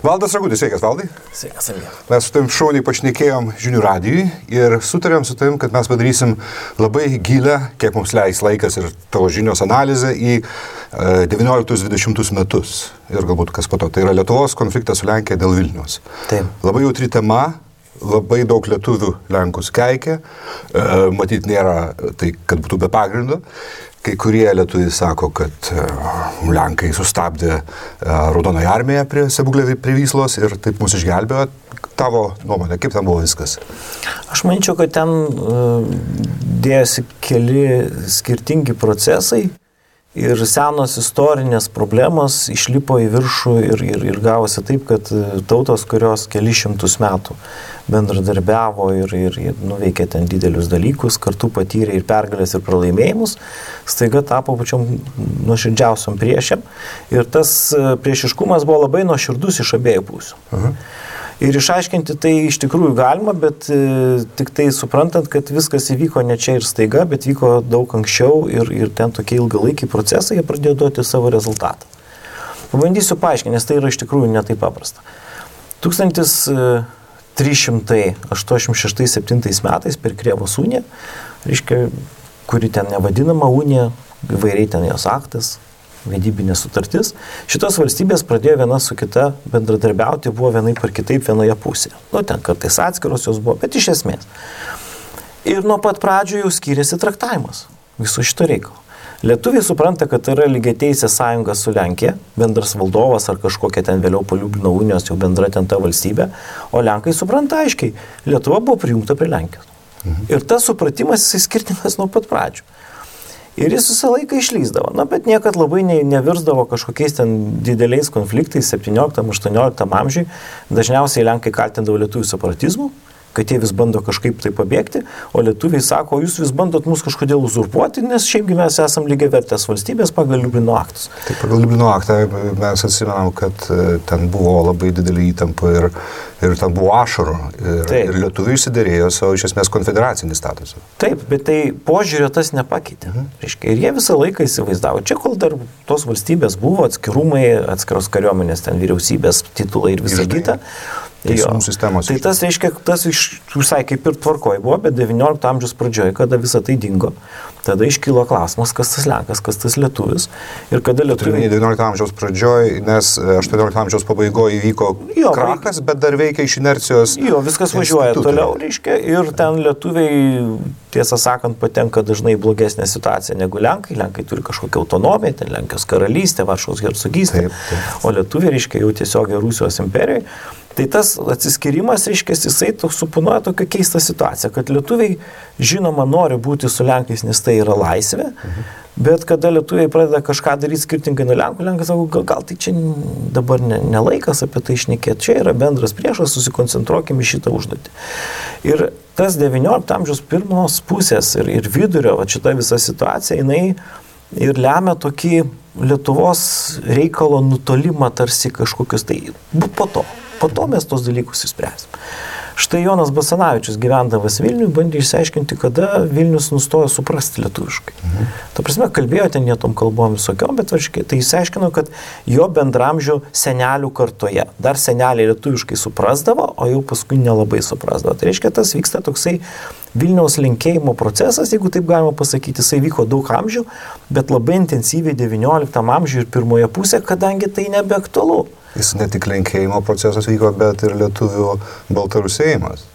Valdas Ragutis, sveikas, Valdai. Sveikas, Emilija. Mes su tavim šauniai pašnekėjom Žinių radijui ir sutarėm su tavim, kad mes padarysim labai gilę, kiek mums leis laikas ir tavo žinios analizę į 19-20 metus. Ir galbūt kas po to. Tai yra Lietuvos konfliktas su Lenkija dėl Vilniaus. Taip. Labai jautri tema. Labai daug lietuvių Lenkus keikia, matyt nėra tai, kad būtų be pagrindo. Kai kurie lietuviai sako, kad Lenkai sustabdė Raudonąją armiją prie Sebuglė prie Vyslos ir taip mus išgelbėjo. Tavo nuomonė, kaip ten buvo viskas? Aš manyčiau, kad ten dėjosi keli skirtingi procesai ir senos istorinės problemos išlipo į viršų ir gavosi taip, kad tautos, kurios keli šimtus metų bendradarbiavo ir nuveikė ten didelius dalykus, kartu patyrė ir pergalės, ir pralaimėjimus, staiga tapo pačiom nuoširdžiausiom priešėm. Ir tas priešiškumas buvo labai nuoširdus iš abiejų pusių. Ir išaiškinti tai iš tikrųjų galima, bet tik tai suprantant, kad viskas įvyko ne čia ir staiga, bet vyko daug anksčiau ir ten tokie ilgalaikiai procesai, jie pradėjo duoti savo rezultatą. Pabandysiu paaiškinti, nes tai yra iš tikrųjų ne taip paprasta. 1386-7 metais per Krėvos uniją, reiškia, kuri ten nevadinama unija, įvairiai ten jos aktas, vedybinė sutartis, šitos valstybės pradėjo viena su kita bendradarbiauti, buvo vienaip ar kitaip vienoje pusėje. Ten kartais atskiros jos buvo, bet iš esmės. Ir nuo pat pradžių jau skyrėsi traktavimas viso šito reikalo. Lietuviai supranta, kad tai yra lygiateisė sąjunga su Lenkija, bendras valdovas ar kažkokia ten vėliau po Liublino unijos jau bendra ten ta valstybė, o Lenkai supranta aiškiai, Lietuva buvo prijungta prie Lenkijos. Ir tas supratimas jisai skirtingas nuo pat pradžių. Ir jis visą laiką išlysdavo, bet niekad labai nevirsdavo kažkokiais ten dideliais konfliktais 17-18 amžiui. Dažniausiai Lenkai kaltindavo lietuvių separatizmu, kad jie vis bando kažkaip tai pabėgti, o lietuviai sako, jūs vis bandot mus kažkodėl uzurpuoti, nes šiaipgi mes esam lygiavertės valstybės pagal Liublino aktus. Taip, pagal Liublino aktą mes atsimenam, kad ten buvo labai didelį įtampą ir ten buvo ašarų. Ir lietuviai išsiderėjo savo iš esmės konfederacinį statusą. Taip, bet tai požiūrio tas nepakeitė. Ir jie visą laiką įsivaizdavo. Čia kol dar tos valstybės buvo, atskirumai, atskiros kariuomenės, ten vyriausybės titulai ir visa kita. Tai tas reiškia, tas visai kaip ir tvarkoj buvo, bet 19 amžiaus pradžioje, kada visą tai dingo, tada iškilo klausimas, kas tas Lenkas, kas tas lietuvis. Ir kada lietuviai... 19 amžiaus pradžioje, nes 18 amžiaus pabaigoje įvyko krachas, bet dar veikia iš inercijos. Viskas važiuoja toliau, reiškia, ir ten lietuviai, tiesą sakant, patenka dažnai blogesnė situacija negu Lenkai. Lenkai turi kažkokią autonomiją, ten Lenkijos karalystė, Varšuvos hercogystė, o lietuviai, reiškia, jau tiesiog Rusijos imperijoje. Tai tas atsiskirimas, reiškia, jisai suponuoja tokią keistą situaciją, kad lietuviai žinoma nori būti su Lenkais, nes tai yra laisvė, bet kada lietuviai pradeda kažką daryti skirtingai nuo Lenkų, Lenkai sako, gal tai čia dabar ne laikas apie tai šnekėti, čia yra bendras priešas, susikoncentruokime į šitą užduotį. Ir tas 19 amžiaus pirmos pusės ir vidurio, šita visa situacija, jinai ir lemia tokį Lietuvos reikalo nutolimą tarsi kažkokius, tai po to mes tos dalykus įspręsim. Štai Jonas Basanavičius, gyvendamas Vilniuje, bandė išsiaiškinti, kada Vilnius nustojo suprasti lietuviškai. Ta prasme, kalbėjo ten jie tom kalbom visokiom, bet tai išsiaiškino, kad jo bendramžių senelių kartoje dar seneliai lietuviškai suprasdavo, o jau paskui nelabai suprasdavo. Tai reiškia, tas vyksta toksai Vilniaus lenkėjimo procesas, jeigu taip galima pasakyti, jisai vyko daug amžių, bet labai intensyviai 19 amžiuje ir pirmoje pusėje, kadangi tai nebeaktualu. Jis ne tik lenkėjimo procesas vyko, bet ir lietuvių baltarusėjimas.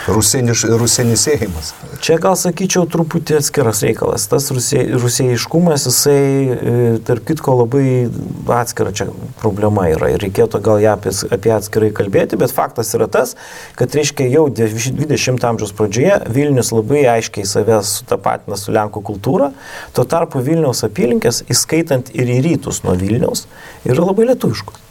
Rusenisėjimas. Čia gal sakyčiau truputį atskiras reikalas. Tas rusėjiškumas, jisai, tarp kitko, labai atskira čia problema yra. Ir reikėtų gal ją apie atskirai kalbėti, bet faktas yra tas, kad reiškia jau 20 amžiaus pradžioje Vilnius labai aiškiai savęs sutapatina su Lenkų kultūra. Tuo tarpu Vilniaus apylinkės, įskaitant ir į rytus nuo Vilniaus, yra labai lietuviškos.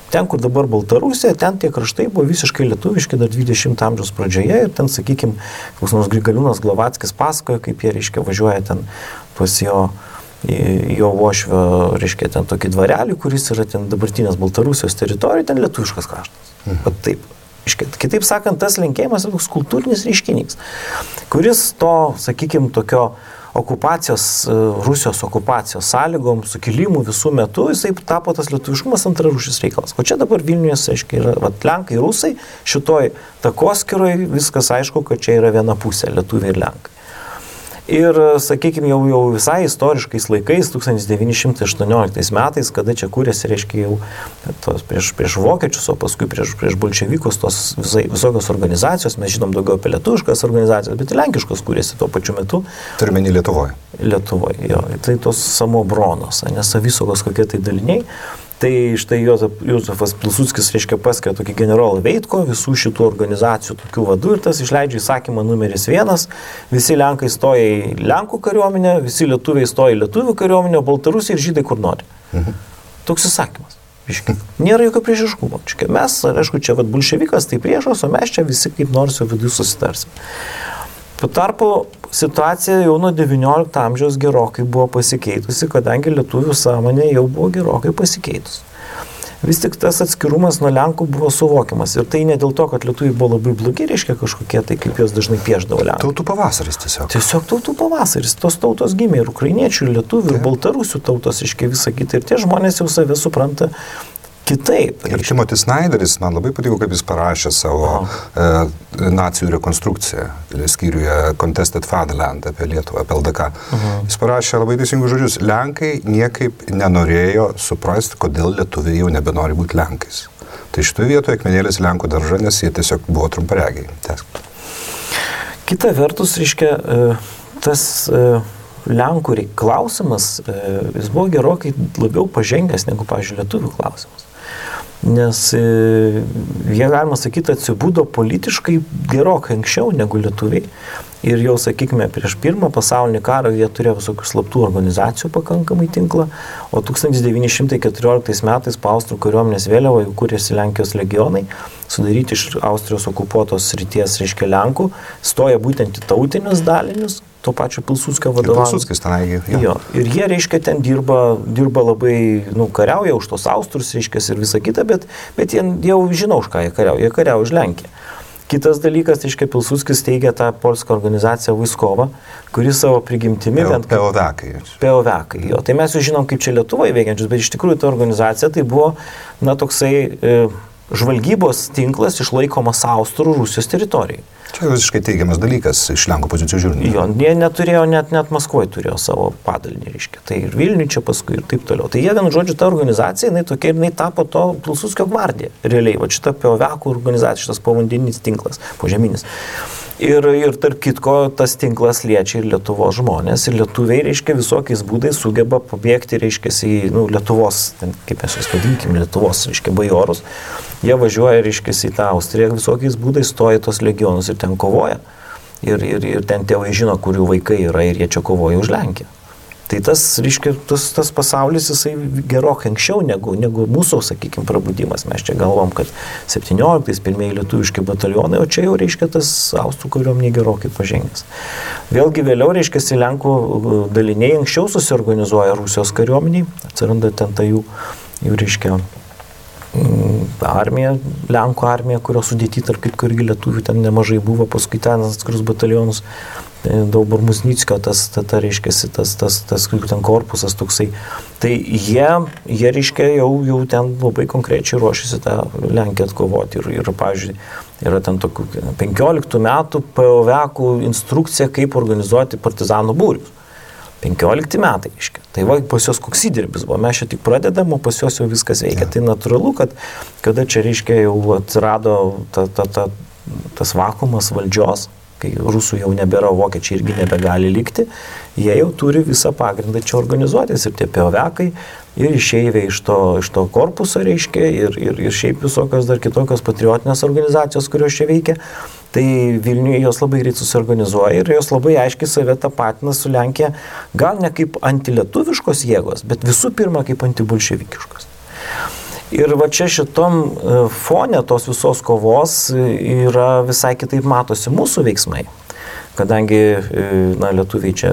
Ten, kur dabar Baltarusija, ten tie kraštai buvo visiškai lietuviški dar 20 amžiaus pradžioje ir ten, sakykime, koks nors Grigaliūnas Glovackis pasakoja, kaip jie, reiškia, važiuoja ten pas jo Vošvio, reiškia, ten tokį dvarelį, kuris yra ten dabartinės Baltarusijos teritorija, ten lietuviškas kraštas. Bet taip. Kitaip sakant, tas lenkėjimas yra toks kultūrinis reiškinys, kuris to, sakykime, tokio Rusijos okupacijos sąlygom, sukilimų visų metų, jisai tapo tas lietuviškumas antrarūšis reikalas. O čia dabar Vilniuje, aiškiai, yra lenkai, rusai, šitoj takoskiroj viskas aišku, kad čia yra viena pusė, lietuviai ir lenkai. Ir, sakykime, jau visai istoriškais laikais, 1918 metais, kada čia kūrėsi, reiškia, jau prieš vokiečius, o paskui prieš bolševikus tos visokios organizacijos, mes žinom daugiau apie lietuviškas organizacijas, bet ir lenkiškos kūrėsi tuo pačiu metu. Turime į Lietuvoje. Lietuvoje, jo. Tai tos samobronos, nesavisaugos kokie tai daliniai. Tai štai Jozefas Pilsudskis, reiškia, paskiria tokį generolą Veitko, visų šitų organizacijų tokių vadų ir tas išleidžia įsakymą numeris 1, visi lenkai stoja į lenkų kariuomenę, visi lietuviai stoja į lietuvių kariuomenę, baltarusiai ir žydai kur nori. Toks įsakymas. Nėra jokio priešiškumo. Mes, aišku, čia bolševikas tai priešas, o mes čia visi kaip nors jau viduje susitarsim. Tuo tarpu situacija jau nuo 19 amžiaus gerokai buvo pasikeitusi, kadangi lietuvių sąmonė jau buvo gerokai pasikeitusi. Vis tik tas atskirumas nuo lenkų buvo suvokiamas. Ir tai ne dėl to, kad lietuviai buvo labai blogi, reiškia kažkokie, tai kaip jos dažnai piešdavo lenkai. Tautų pavasaris tiesiog. Tiesiog tautų pavasaris. Tos tautos gimė ir ukrainiečių, ir lietuvių, ir baltarusių tautos, reiškia visą kitą. Ir tie žmonės jau save supranta kitaip. Ir Timothy Snyderis, man labai patiko, kaip jis parašė savo nacijų rekonstrukciją, skyriuje Contested Fatherland apie Lietuvą, apie LDK. Jis parašė labai teisingus žodžius. Lenkai niekaip nenorėjo suprasti, kodėl lietuviai jau nebenori būti lenkais. Tai šitoje vietoje akmenėlis Lenkų daržą, nes jie tiesiog buvo trumparegiai. Kita vertus, reiškia, tas Lenkų klausimas, jis buvo gerokai labiau pažengęs negu, pavyzdžiui, lietuvių klausimas. Nes jie, galima sakyti, atsibudo politiškai gerokai anksčiau negu lietuviai. Ir jau, sakykime, prieš Pirmą pasaulinį karą jie turėjo visokių slaptų organizacijų pakankamai tinklą, o 1914 metais po Austrų kariuomenės vėliava jau kūrėsi Lenkijos legionai, sudaryti iš Austrijos okupuotos srities, reiškia Lenkų, stoja būtent į tautinius dalinius, to pačio Pilsudskio vadovavimas. Pilsudskis tenai, jo. Ir jie, reiškia, ten dirba labai, kariauja už tos Austrus, reiškia, ir visą kitą, bet jie jau žino, už ką jie kariauja už Lenkiją. Kitas dalykas, reiškia, Pilsudskis teigia tą polską organizaciją Vaiskova, kuri savo prigimtimi... POVekai. Jo. Tai mes jau žinom, kaip čia Lietuvoje veikiančius, bet iš tikrųjų ta organizacija tai buvo, toksai žvalgybos tinklas išlaikomas Austrų Rusijos teritorijai. Čia visiškai teigiamas dalykas iš Lenkų pozicijų žiūrint. Jo, jie neturėjo, net Maskvoje turėjo savo padalinį, reiškia. Tai ir Vilniuje čia paskui ir taip toliau. Tai jie, vienu žodžiu, ta organizacija, jinai tapo to Pilsudskio gvardija. Realiai, va šita POVekai organizacija, šitas povandeninis tinklas, požeminis. Ir tarp kitko, tas tinklas liečia ir Lietuvos žmonės. Ir lietuviai, reiškia, visokiais būdais sugeba pabėgti, reiškia, į Lietuvos, kaip mes jas vadinkime, Lietuvos, reiškia, bajorus. Jie važiuoja, reiškia, į tą Austriją, visokiais būdais stoja tos legionus ir ten kovoja. Ir ten tėvai žino, kurių vaikai yra ir jie čia kovoja už Lenkiją. Tai tas, reiškia, tas pasaulis, jisai gerokai anksčiau negu mūsų, sakykime, prabudimas. Mes čia galvom, kad 17-ais pirmieji lietuviški batalionai, o čia jau, reiškia, tas Austrų kariuomenė gerokai pažengęs. Vėlgi vėliau, reiškia, Lenkų daliniai anksčiau susiorganizuoja Rusijos kariuomeniai, atsiranda ten ta jų reiškia, armija, Lenkų armija, kurio sudėti, tarp kitko irgi lietuvių ten nemažai buvo, paskui ten atskirus batalionus, Daubor Musnickio, reiškia, tas ten korpusas toksai. Tai jie reiškia, jau ten labai konkrečiai ruošiasi tą Lenkiją atkovoti. Ir pavyzdžiui, yra ten tokių 15 metų POVekų instrukcija, kaip organizuoti partizanų būrius. 15 metai, reiškia. Tai va, pas jos koks įdirbis buvo. Mes čia tik pradedam, o pas jos jau viskas veikia. Tai natūralu, kad kada čia, reiškia, jau atsirado tas vakuumas valdžios, kai rusų jau nebėra, vokiečiai irgi nebegali likti, jie jau turi visą pagrindą čia organizuotis. Ir tie POVekai, ir išeiviai iš to korpuso, reiškia, ir šiaip visokios dar kitokios patriotinės organizacijos, kurios čia veikia. Tai Vilniuje jos labai greit susiorganizuoja ir jos labai aiškiai save tapatina su Lenkija, gal ne kaip antilietuviškos jėgos, bet visų pirma kaip antibolševikiškos. Ir va čia šitom fone tos visos kovos yra visai kitaip matosi mūsų veiksmai. Kadangi lietuviai čia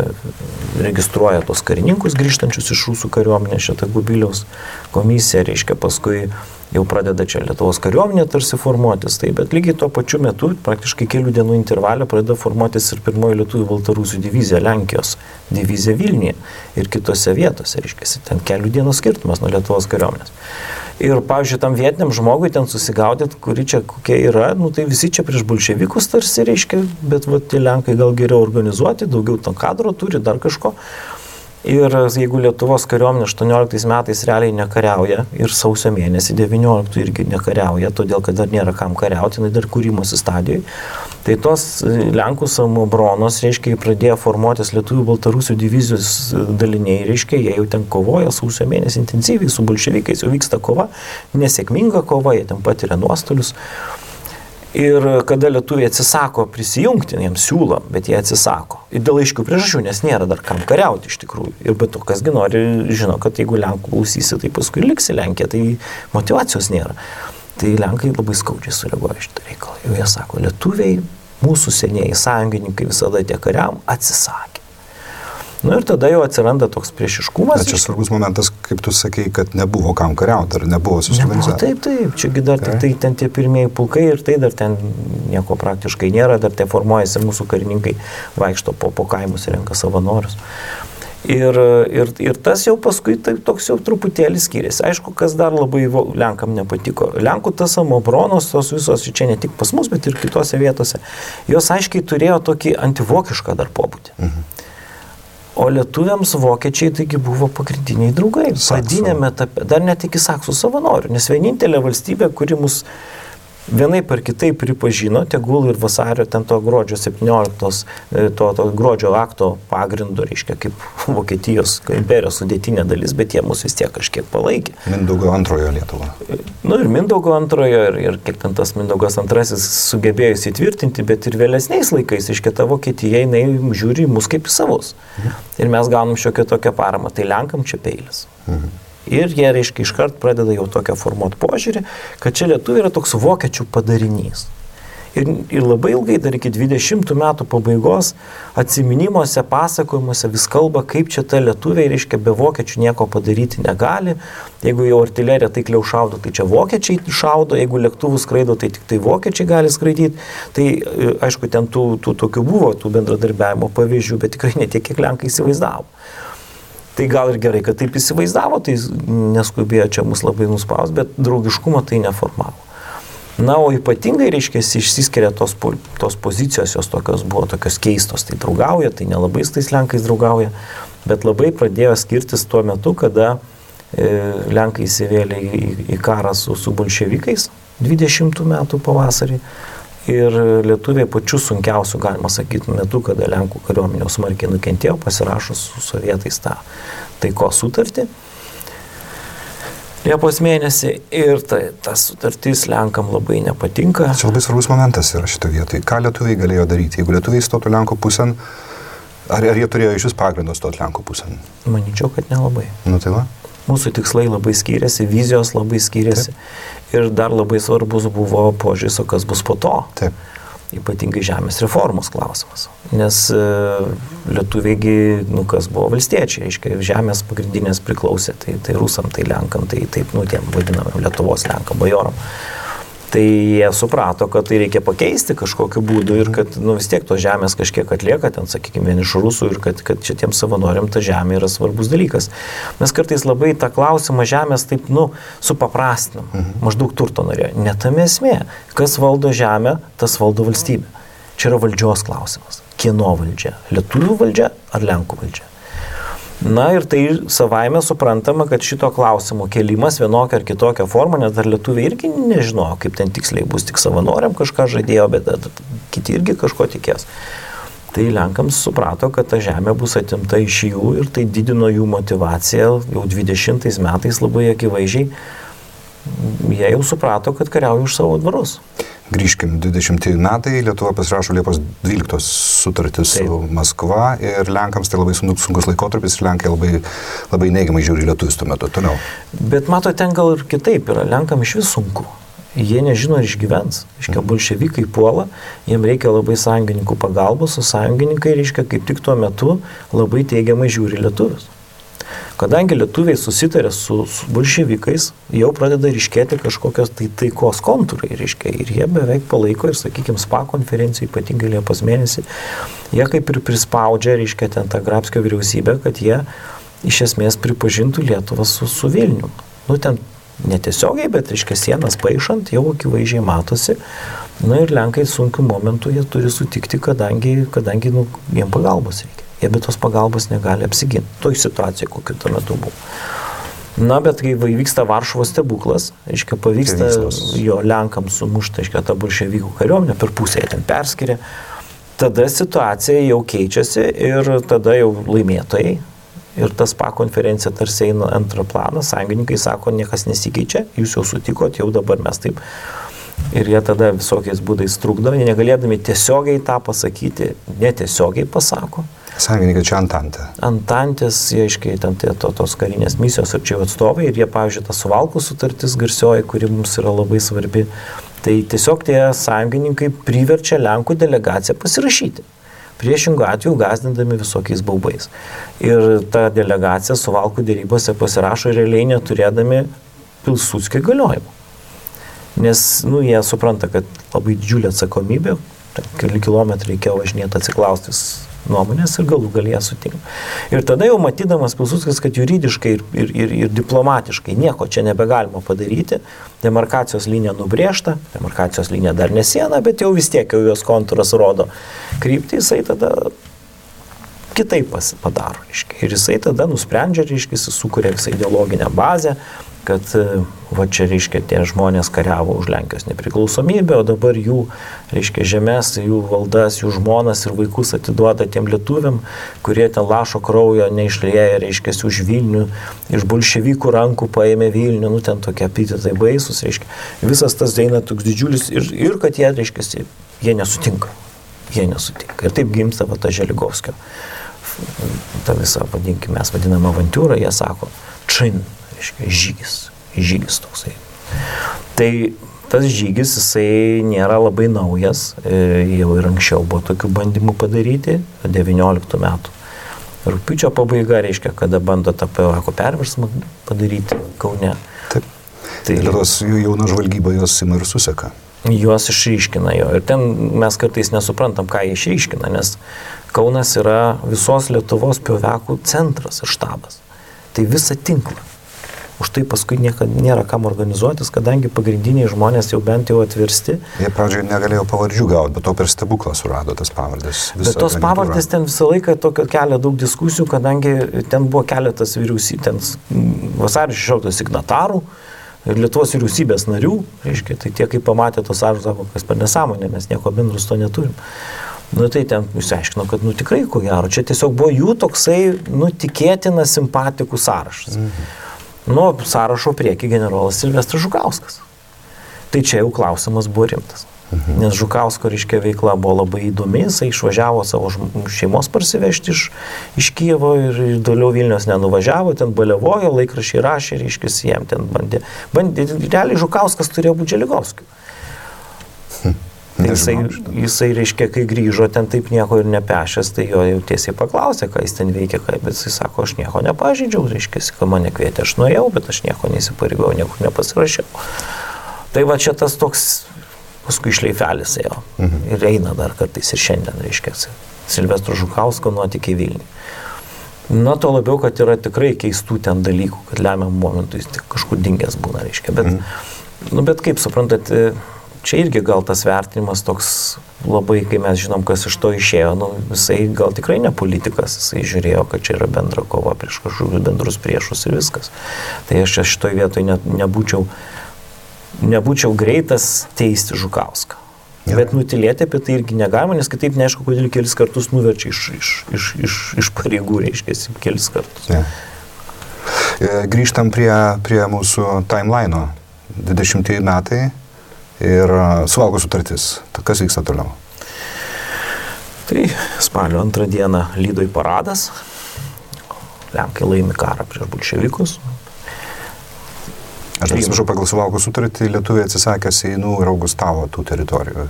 registruoja tos karininkus grįžtančius iš rusų kariuomenės, šitą Gubiliaus komisiją, reiškia paskui jau pradeda čia Lietuvos kariuomenė tarsi formuotis, tai, bet lygiai tuo pačiu metu, praktiškai kelių dienų intervalė, pradeda formuotis ir pirmoji lietuvių baltarusių divizija, Lenkijos divizija Vilniuje ir kitose vietose, reiškia, ten kelių dienų skirtumas nuo Lietuvos kariuomenės. Ir, pavyzdžiui, tam vietiniam žmogui ten susigaudyt, kuri čia kokia yra, tai visi čia prieš bolševikus tarsi, reiškia, bet tie Lenkai gal geriau organizuoti, daugiau to kadro turi, dar kažko. Ir jeigu Lietuvos kariuomenė 18 metais realiai nekariauja ir sausio mėnesį 19 irgi nekariauja, todėl kad dar nėra kam kariauti, dar kūrimosi stadijoje, tai tos Lenkų samobronos, reiškia, pradėjo formuotis Lietuvių Baltarusių divizijos daliniai, reiškia, jie jau ten kovoja sausio mėnesį intensyviai su bolševikais, jau vyksta kova, nesėkminga kova, jie ten patiria nuostolius. Ir kada lietuviai atsisako prisijungti, jiems siūlo, bet jie atsisako. Ir dėl aiškių priežasčių, nes nėra dar kam kariauti iš tikrųjų. Ir be to, kasgi nori, žino, kad jeigu Lenkų klausysi, tai paskui liksi Lenkija, tai motyvacijos nėra. Tai Lenkai labai skaudžiai sureaguoja šitą reikalą. Jau jie sako, lietuviai, mūsų senieji sąjungininkai visada tie kariam atsisakė. Nu ir tada jau atsiranda toks priešiškumas. Bet čia svarbus momentas, kaip tu sakei, kad nebuvo kam kariauti, ar nebuvo susiorganizavę. Taip, čiagi dar tai ten tie pirmieji pulkai ir tai dar ten nieko praktiškai nėra, dar tai formuojasi mūsų karininkai, vaikšto po kaimus ir renka savanorius. Ir tas jau paskui tai toks jau truputėlį skiriasi. Aišku, kas dar labai Lenkam nepatiko. Lenkų tas samobronos, tos visos, čia ne tik pas mus, bet ir kitose vietose, jos aiškiai turėjo tokį antivokišką dar pobūdį. Mhm. O lietuviams vokiečiai taigi buvo pagrindiniai draugai. Pradinėme etape, dar net iki saksų savanorių, nes vienintelė valstybė, kuri mus vienaip ar kitaip pripažino, tegul ir vasario ten to gruodžio 17, to gruodžio akto pagrindu, reiškia, kaip Vokietijos imperijos sudėtinė dalis, bet jie mus vis tiek kažkiek palaikė. Mindaugo antrojo Lietuva. Nu ir Mindaugo antrojo, ir kiek ten tas Mindaugas antrasis sugebėjo įsitvirtinti, bet ir vėlesniais laikais, reiškia, ta Vokietija, jinai žiūri mus kaip į savus. Ir mes gaunam šiokią tokią paramą, tai Lenkam čia peilis. Ir jie, reiškia, iškart pradeda jau tokią formuoti požiūrį, kad čia lietuviai yra toks vokiečių padarinys. Ir labai ilgai, dar iki 20 metų pabaigos, atsiminimuose, pasakojimuose vis kalba, kaip čia ta lietuviai, reiškia, be vokiečių nieko padaryti negali. Jeigu jau artilerija taikliau šaudo, tai čia vokiečiai šaudo, jeigu lėktuvų skraido, tai tik tai vokiečiai gali skraidyti. Tai, aišku, ten tų tokių buvo, tų bendradarbiavimo pavyzdžių, bet tikrai ne tiek, kiek Lenkai įsivaizdavo. Tai gal ir gerai, kad taip įsivaizdavo, tai neskubėjo čia mus labai nuspaus, bet draugiškumo tai neformavo. Na, o ypatingai, reiškia, išsiskiria tos pozicijos, jos buvo tokios keistos, tai draugauja, tai nelabai su tais Lenkais draugauja, bet labai pradėjo skirtis tuo metu, kada Lenkai įsivėlė į karą su bolševikais 20 metų pavasarį. Ir lietuviai pačiu sunkiausiu, galima sakyti, metu, kada Lenkų kariuomenė smarkiai nukentėjo, pasirašo su sovietais tą taikos sutartį Liepos mėnesį. Ir ta sutartis Lenkam labai nepatinka. Čia labai svarbus momentas yra šito vietoj. Ką lietuviai galėjo daryti? Jeigu lietuviai stotų Lenkų pusėn, ar jie turėjo iš vis pagrindą stoti Lenkų pusėn? Manyčiau, kad nelabai. Nu tai va. Mūsų tikslai labai skiriasi, vizijos labai skiriasi. Taip. Ir dar labai svarbus buvo požiūris, o kas bus po to. Taip. Ypatingai žemės reformos klausimas. Nes lietuviai, kas buvo valstiečiai, reiškia, žemės pagrindinės priklausė, tai rusam, tai Lenkam, tai taip, tiem vadinamam Lietuvos Lenkam, bajoram. Tai jie suprato, kad tai reikia pakeisti kažkokiu būdu ir kad vis tiek tos žemės kažkiek atlieka, ten, sakykime, vien iš rusų ir kad šitiems savanoriam ta žemė yra svarbus dalykas. Mes kartais labai tą klausimą žemės taip, supaprastinam, maždaug turto norėjo. Ne tame esmė, kas valdo žemę, tas valdo valstybę. Čia yra valdžios klausimas. Kieno valdžia? Lietuvių valdžia ar Lenkų valdžia? Na ir tai savaime suprantama, kad šito klausimo kėlimas vienokia ar kitokia forma, nes dar lietuviai irgi nežinojo, kaip ten tiksliai bus, tik savanoriam kažką žadėjo, bet kiti irgi kažko tikės. Tai Lenkams suprato, kad ta žemė bus atimta iš jų ir tai didino jų motivaciją jau 20 metais labai akivaizdžiai. Jie jau suprato, kad kariauja už savo dvarus. Grįžkim, 20 metai, Lietuva pasirašo Liepos 12 sutartį su Maskva ir Lenkams tai labai sunkus laikotarpis ir Lenkai labai neigiamai žiūri lietuvius tuo metu. Toliau. Bet mato, ten gal ir kitaip yra, Lenkam iš vis sunku. Jie nežino, ar išgyvens. Reiškia, bolševikai puola, jiem reikia labai sąjungininkų pagalbos, o sąjungininkai, reiškia, kaip tik tuo metu labai teigiamai žiūri lietuvius. Kadangi lietuviai susitarė su bolševikais, jau pradeda ryškėti kažkokios taikos kontūrai, reiškia, ir jie beveik palaiko ir, sakykime, SPA konferencijai, ypatingai Liepos mėnesį, jie kaip ir prispaudžia, reiškia, ten tą Grabskio vyriausybę, kad jie iš esmės pripažintų Lietuvą su Vilnium. Nu, ten netiesiogiai, bet, reiškia, sienas paišant, jau akivaizdžiai matosi. Na ir Lenkai sunkių momentų jie turi sutikti, kadangi jiem pagalbos reikia. Jie be tos pagalbos negali apsiginti. Toj situacijai, kokiu tuo metu buvo. Na, bet kai vyksta Varšuvos stebuklas, reiškia, pavyksta jo Lenkams sumušti, reiškia, tą bolševikų kariuomenę, per pusę jie ten perskiria, tada situacija jau keičiasi ir tada jau laimėtojai. Ir tas SPA konferencija tarsi eina antrą planą, sąjungininkai sako, niekas nesikeičia, jūs jau sutikot, jau dabar mes taip. Ir jie tada visokiais būdais trukdo, negalėdami tiesiogiai tą pasakyti, netiesiogiai pasako. Sąjungininkai čia Antantė. Antantės, jie aiškiai, ten tos karinės misijos ar čia atstovai, ir jie, pavyzdžiui, ta Suvalkų sutartis garsioji, kuri mums yra labai svarbi, tai tiesiog tie sąjungininkai priverčia Lenkų delegaciją pasirašyti. Priešingų atveju gazdindami visokiais baubais. Ir ta delegacija Suvalkų dėrybose pasirašo realiai neturėdami Pilsudskio įgaliojimų. Nes, jie supranta, kad labai didžiulė atsakomybė, keli kilometrai reikėjo važinėti atsiklaustis nuomonės ir galų galėje sutinka. Ir tada jau matydamas Pilsudskis, kad juridiškai ir diplomatiškai nieko čia nebegalima padaryti, demarkacijos linija nubrėžta, demarkacijos linija dar ne siena, bet jau vis tiek jau jos kontūras rodo kryptį, jisai tada kitaip padaro. Ir jisai tada nusprendžia, jis sukuria visą ideologinę bazę, kad va čia, tie žmonės kariavo už Lenkijos nepriklausomybę, o dabar jų, žemės, jų valdas, jų žmonas ir vaikus atiduoda tiem lietuviam, kurie ten lašo kraujo neišlieja, už Vilnių, iš bolševikų rankų paėmė Vilnių, ten tokie epitetai baisus, visas tas eina toks didžiulis ir kad jie, jie nesutinka. Jie nesutinka. Ir taip gimsta va ta Želigovskio, ta visa, vadinkime, mes vadinam avantūrą, jie sako, žygis toksai. Tai tas žygis, jisai nėra labai naujas, jau ir anksčiau buvo tokių bandymų padaryti, 19 metų. Rugpjūčio pabaiga reiškia, kada bando tą PVK perversmą padaryti Kaune. Taip. Tai tos jauna žvalgyba jos ima ir suseka. Juos išryškina jo. Ir ten mes kartais nesuprantam, ką jie išryškina, nes Kaunas yra visos Lietuvos PVK centras ir štabas. Tai visą tinklą. Už tai paskui nėra kam organizuotis, kadangi pagrindiniai žmonės jau bent jau atversti. Jie pradžioje negalėjo pavardžių gauti, bet to per stebuklą surado tas pavardės. Bet tos pavardės ten visą laiką tokio kelia daug diskusijų, kadangi ten buvo keletas vyriausybės, ten vasario 16 signatarų ir Lietuvos vyriausybės narių, tai tie, kai pamatė tos sąrašus, sako, kas per nesąmonė, mes nieko bendro su to neturim. Tai ten išsiaiškino, kad tikrai, ko gero, čia tiesiog buvo jų toksai, tikėtina simpatikų sąrašas. Sąrašo prieki generolas Silvestras Žukauskas. Tai čia jau klausimas buvo rimtas. Nes Žukausko, veikla buvo labai įdomi, jisai išvažiavo savo šeimos parsivežti iš Kijevo ir toliau Vilnius nenuvažiavo, ten baliavojo, laikraščiai rašė, jiem ten bandė. Realiai Žukauskas turėjo būti Želigovskiu. Jisai, kai grįžo ten taip nieko ir nepešęs, tai jo jau tiesiai paklausė, ką jis ten veikia, bet jisai sako, aš nieko nepažydžiau, kad mane kvietė, aš nuėjau, bet aš nieko neįsipareigojau, niekur nepasirašiau. Tai va čia tas toks, paskui šleifelis ėjo ir eina dar kartais ir šiandien, Silvestro Žukausko nuotykiai Vilniui. To labiau, kad yra tikrai keistų ten dalykų, kad lemiam momentų jis kažkur dingęs būna, bet kaip suprantat, čia irgi gal tas vertinimas toks labai, kai mes žinom, kas iš to išėjo, jisai gal tikrai ne politikas, jisai žiūrėjo, kad čia yra bendra kova prieš kažkokius bendrus priešus ir viskas. Tai aš šitoj vietoj nebūčiau greitas teisti Žukauską. Ja. Bet nutilėti apie tai irgi negalima, nes kitaip neaišku, kodėl kelis kartus nuverčia iš pareigų, kelis kartus. Ja. Grįžtam prie mūsų timeline'o. 20 metai. Ir Suvalkų sutartis. Kas vyksta toliau? Tai spalio 2 dieną Lydoj paradas. Lenkai laimi karą prieš bolševikus. Aš atsiprašau, pagal Suvalkų sutartį lietuviai atsisakė Seinų ir Augustavo tų teritorijų,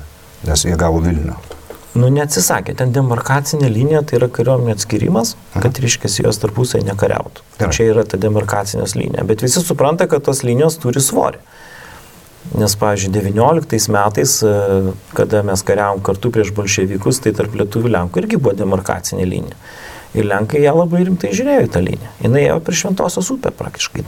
nes jie gavo Vilnių. Nu, neatsisakė. Ten demarkacinė linija, tai yra kariuomenė atskirimas, kad, reiškiasi, jos tarpusai nekariautų. Čia yra ta demarkacinės linija. Bet visi supranta, kad tos linijos turi svorį. Nes, pavyzdžiui, 19 metais, kada mes kariavom kartu prieš bolševikus, tai tarp lietuvių Lenkų irgi buvo demarkacinė linija. Ir Lenkai ją labai rimtai žiūrėjo į tą liniją. Jis ėjo prie Šventosios upę praktiškai.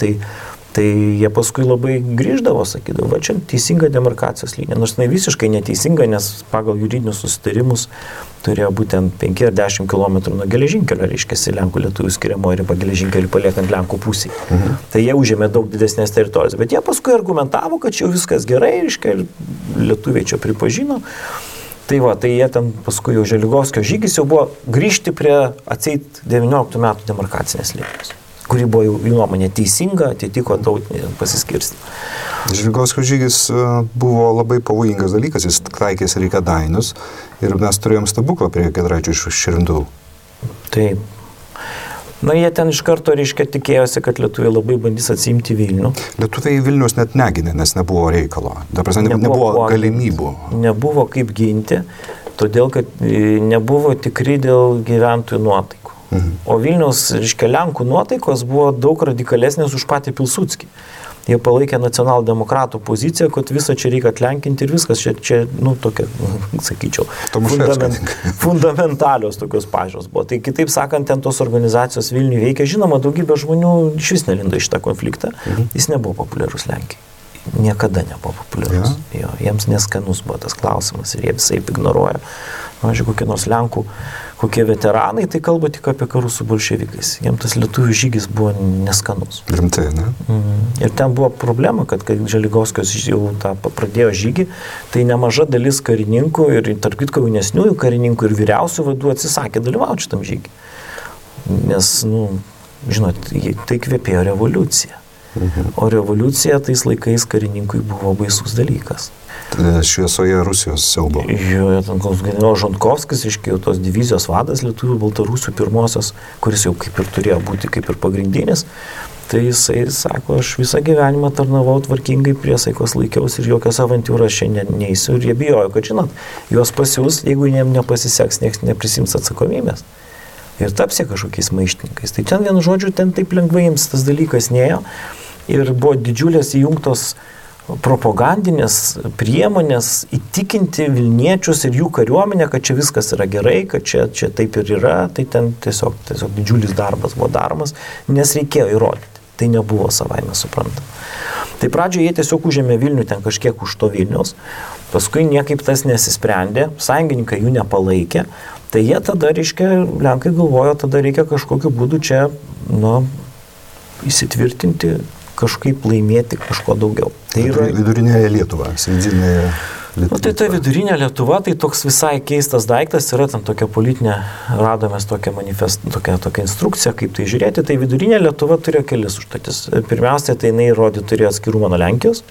Tai jie paskui labai grįždavo, sakydavo, va čia teisinga demarkacijos linija. Nors jinai visiškai neteisinga, nes pagal juridinius susitarimus turėjo būtent 5 ar 10 km nuo geležinkelio, reiškiasi, Lenkų lietuvių skiriamoji riba geležinkelį paliekant Lenkų pusį. Tai jie užėmė daug didesnės teritorijos. Bet jie paskui argumentavo, kad čia viskas gerai, reiškia, ir lietuviai čia pripažino. Tai va, tai jie ten paskui jau Želigovskio žygis jau buvo grįžti prie atseit 19 metų demarkacinės linijos, kuri buvo jų nuomonė teisinga, atitiko tautinį pasiskirstymą. Želigovskio žygis buvo labai pavojingas dalykas, jis taikėsi į Kėdainius ir mes turėjom stebuklą prie Giedraičio iš Širvintų. Taip. Na, jie ten iš karto, reiškia, tikėjosi, kad lietuviai labai bandys atsiimti Vilnių. Lietuviai Vilnius net negynė, nes nebuvo reikalo. Dabar nebuvo galimybių. Nebuvo kaip ginti, todėl, kad nebuvo tikri dėl gyventojų nuotaikų. O Vilniaus, reiškia, Lenkų nuotaikos buvo daug radikalesnės už patį Pilsudskį. Jie palaikė nacionaldemokratų poziciją, kad visą čia reikia atlenkinti ir viskas. Čia nu, tokia, sakyčiau, fundamentalios tokios pažiūros buvo. Tai kitaip sakant, ten tos organizacijos Vilniuje veikia. Žinoma, daugybė žmonių iš vis nelindo į šitą konfliktą. Jis nebuvo populiarus Lenkijai. Niekada nebuvo populiarus. Jo, jiems neskanus buvo tas klausimas ir jie visai ignoruoja. Pavyzdžiui, kokie nors Lenkų, kokie veteranai, tai kalba tik apie karus su bolševikais. Jiems tas lietuvių žygis buvo neskanus. Rimtai, ne? Ir ten buvo problema, kad kai Želigovskis jau tą pradėjo žygį, tai nemaža dalis karininkų ir tarp kitko jaunesniųjų karininkų ir vyriausių vadų atsisakė dalyvauti šitam žygį. Nes, nu, žinot, tai kvepėjo revoliucija. O revoliucija tais laikais karininkui buvo baisus dalykas. Šviesoje Rusijos siaubo. Jo, ten generolas Žantkovskis, iškėjo tos divizijos vadas lietuvių Baltarusių pirmosios, kuris jau kaip ir turėjo būti kaip ir pagrindinis. Tai jisai sako, aš visą gyvenimą tarnavau tvarkingai, priesaikos laikiausi ir jokios avantūros šiandien neįsiu. Ir jie bijojo, kad, žinot, juos pasiūs, jeigu jiems nepasiseks, niekas neprisims atsakomybės. Ir tapsi kažkokiais maištininkais. Tai ten vienu žodžiu, ten taip lengvai jiems tas dalykas nėjo. Ir buvo didžiulės įjungtos propagandinės priemonės įtikinti Vilniečius ir jų kariuomenę, kad čia viskas yra gerai, kad čia taip ir yra. Tai ten tiesiog didžiulis darbas buvo daromas, nes reikėjo įrodyti. Tai nebuvo savaime suprantama. Tai pradžioje jie tiesiog užėmė Vilnių ten kažkiek už to Vilniaus, paskui niekaip tas nesisprendė, sąjungininkai jų nepalaikė. Tai jie tada, reiškia, Lenkai galvojo, tada reikia kažkokiu būdu čia, įsitvirtinti, kažkaip laimėti kažko daugiau. Tai yra vidurinėje Lietuva, sėdinėje Lietuva. Tai ta vidurinė Lietuva, tai toks visai keistas daiktas, yra ten tokia politinė, radomės tokią tokią instrukciją, kaip tai žiūrėti. Tai vidurinė Lietuva turėjo kelis užduotis. Pirmiausia, tai jinai turėjo atskirumą nuo Lenkijos.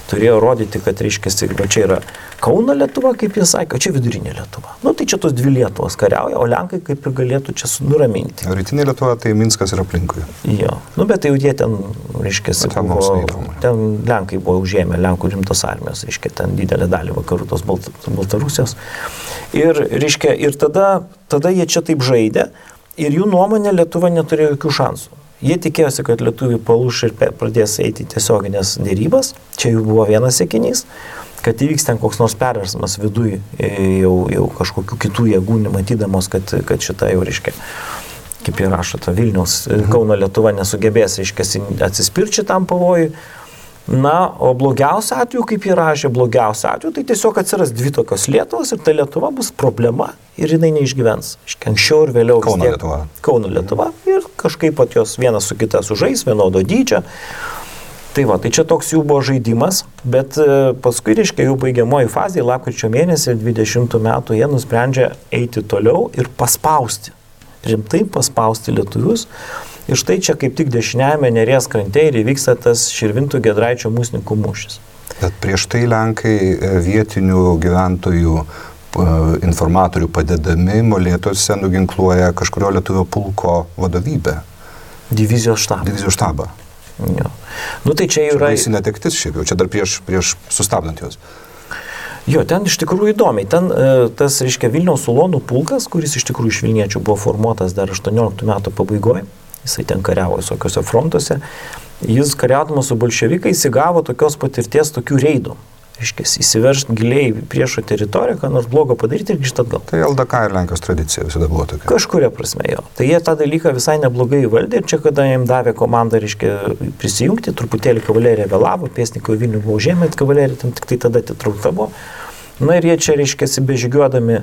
Turėjo rodyti, kad, reiškia, čia yra Kauno Lietuva, kaip jie sakė, o čia vidurinė Lietuva. Nu, tai čia tos dvi Lietuvos kariauja, o Lenkai kaip ir galėtų čia nuraminti. Rytinė Lietuva, tai Minskas ir aplinkui. Jo, nu, bet tai jau jie ten, reiškia, ten Lenkai buvo užėmę, Lenkų rimtos armijos, reiškia, ten didelę dalį vakarų tos Baltarusijos. Ir, reiškia, ir tada jie čia taip žaidė ir jų nuomonė Lietuva neturėjo jokių šansų. Jie tikėjosi, kad lietuviai palūš ir pradės eiti tiesioginės dėrybas. Čia jų buvo vienas siekinys, kad įvyks ten koks nors perversmas viduj jau kažkokių kitų jėgų, matydamos, kad šitą jau, reiškia, kaip jie rašo, ta Vilniaus, Kauno Lietuva nesugebės, reiškia, atsispirti šitam pavojui. Na, o blogiausia atveju, kaip jie rašė, blogiausia atveju, tai tiesiog atsiras dvi tokios Lietuvos ir ta Lietuva bus problema ir jinai neišgyvens. Anksčiau ir vėliau Kauno Lietuva ir kažkaip pat jos vienas su kita sužais, vienodo dydžio. Tai va, tai čia toks jų buvo žaidimas, bet paskui, reiškia, jų baigiamoji fazė, lapkričio mėnesį 20 metų, jie nusprendžia eiti toliau ir paspausti, rimtai paspausti lietuvius. Ir štai čia kaip tik dešiniajame Neries krante ir įvyksta tas Širvintų Giedraičio mūsininkų mūšis. Bet prieš tai Lenkai vietinių gyventojų informatorių padedami Molėtuose nuginkluoja kažkurio lietuvio pulko vadovybę. Divizijos štabą. Jo. Nu tai čia yra... Čia baisi netektis šiaip jau, čia dar prieš sustabdant juos. Jo, ten iš tikrųjų įdomiai. Ten tas, reiškia, Vilniaus ulonų pulkas, kuris iš tikrųjų iš Vilniečių buvo formuotas dar 18 metų pabaigoje, jisai ten kariavo visokiuose frontuose, jis kariaudamas su bolševikais įgavo tokios patirties tokių reidų. Reiškia, įsiveržti giliai priešo teritoriją, ką nors blogo padaryti ir grįžti atgal. Tai LDK ir Lenkijos tradicija visada buvo tokia. Kažkuria prasme jo. Tai jie tą dalyką visai neblogai įvaldė ir čia, kada jiems davė komandą, reiškia, prisijungti, truputėlį kavalerija vėlavo, pėstininkai Vilnių buvo užėmę, kavalerija tam tik tai tada atitraukta buvo. Na ir jie čia, reiškia, bežygiuodami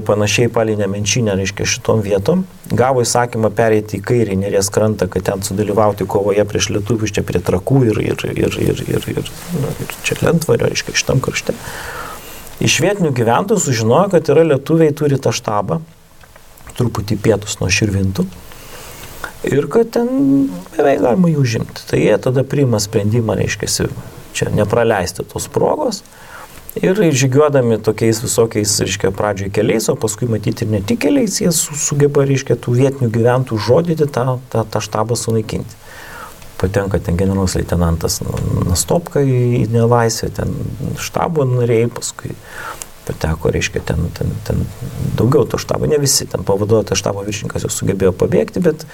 panašiai palei Nemenčinę, reiškia, šitom vietom, gavo įsakymą pereiti į kairį Neries krantą, kad ten sudalyvauti kovoje prieš lietuvius, čia prie Trakų ir čia Lentvario, reiškia, šitam krašte. Iš vietinių gyventojų sužinojo, kad yra lietuviai turi tą štabą, truputį pietus nuo Širvintų, ir kad ten beveik galima jų užimti. Tai jie tada priima sprendimą, reiškia, čia nepraleisti tos progos. Ir žygiuodami tokiais visokiais, reiškia, pradžioj keliais, o paskui matyti ir ne tik keliais, jie sugeba, reiškia, tų vietinių gyventojų žodyti tą štabą sunaikinti. Patenka ten generolas leitenantas Nastopka į nelaisvę, ten štabo nariai, paskui pateko, reiškia, ten daugiau to štabo, ne visi, ten pavaduotas štabo viršininkas jau sugebėjo pabėgti, bet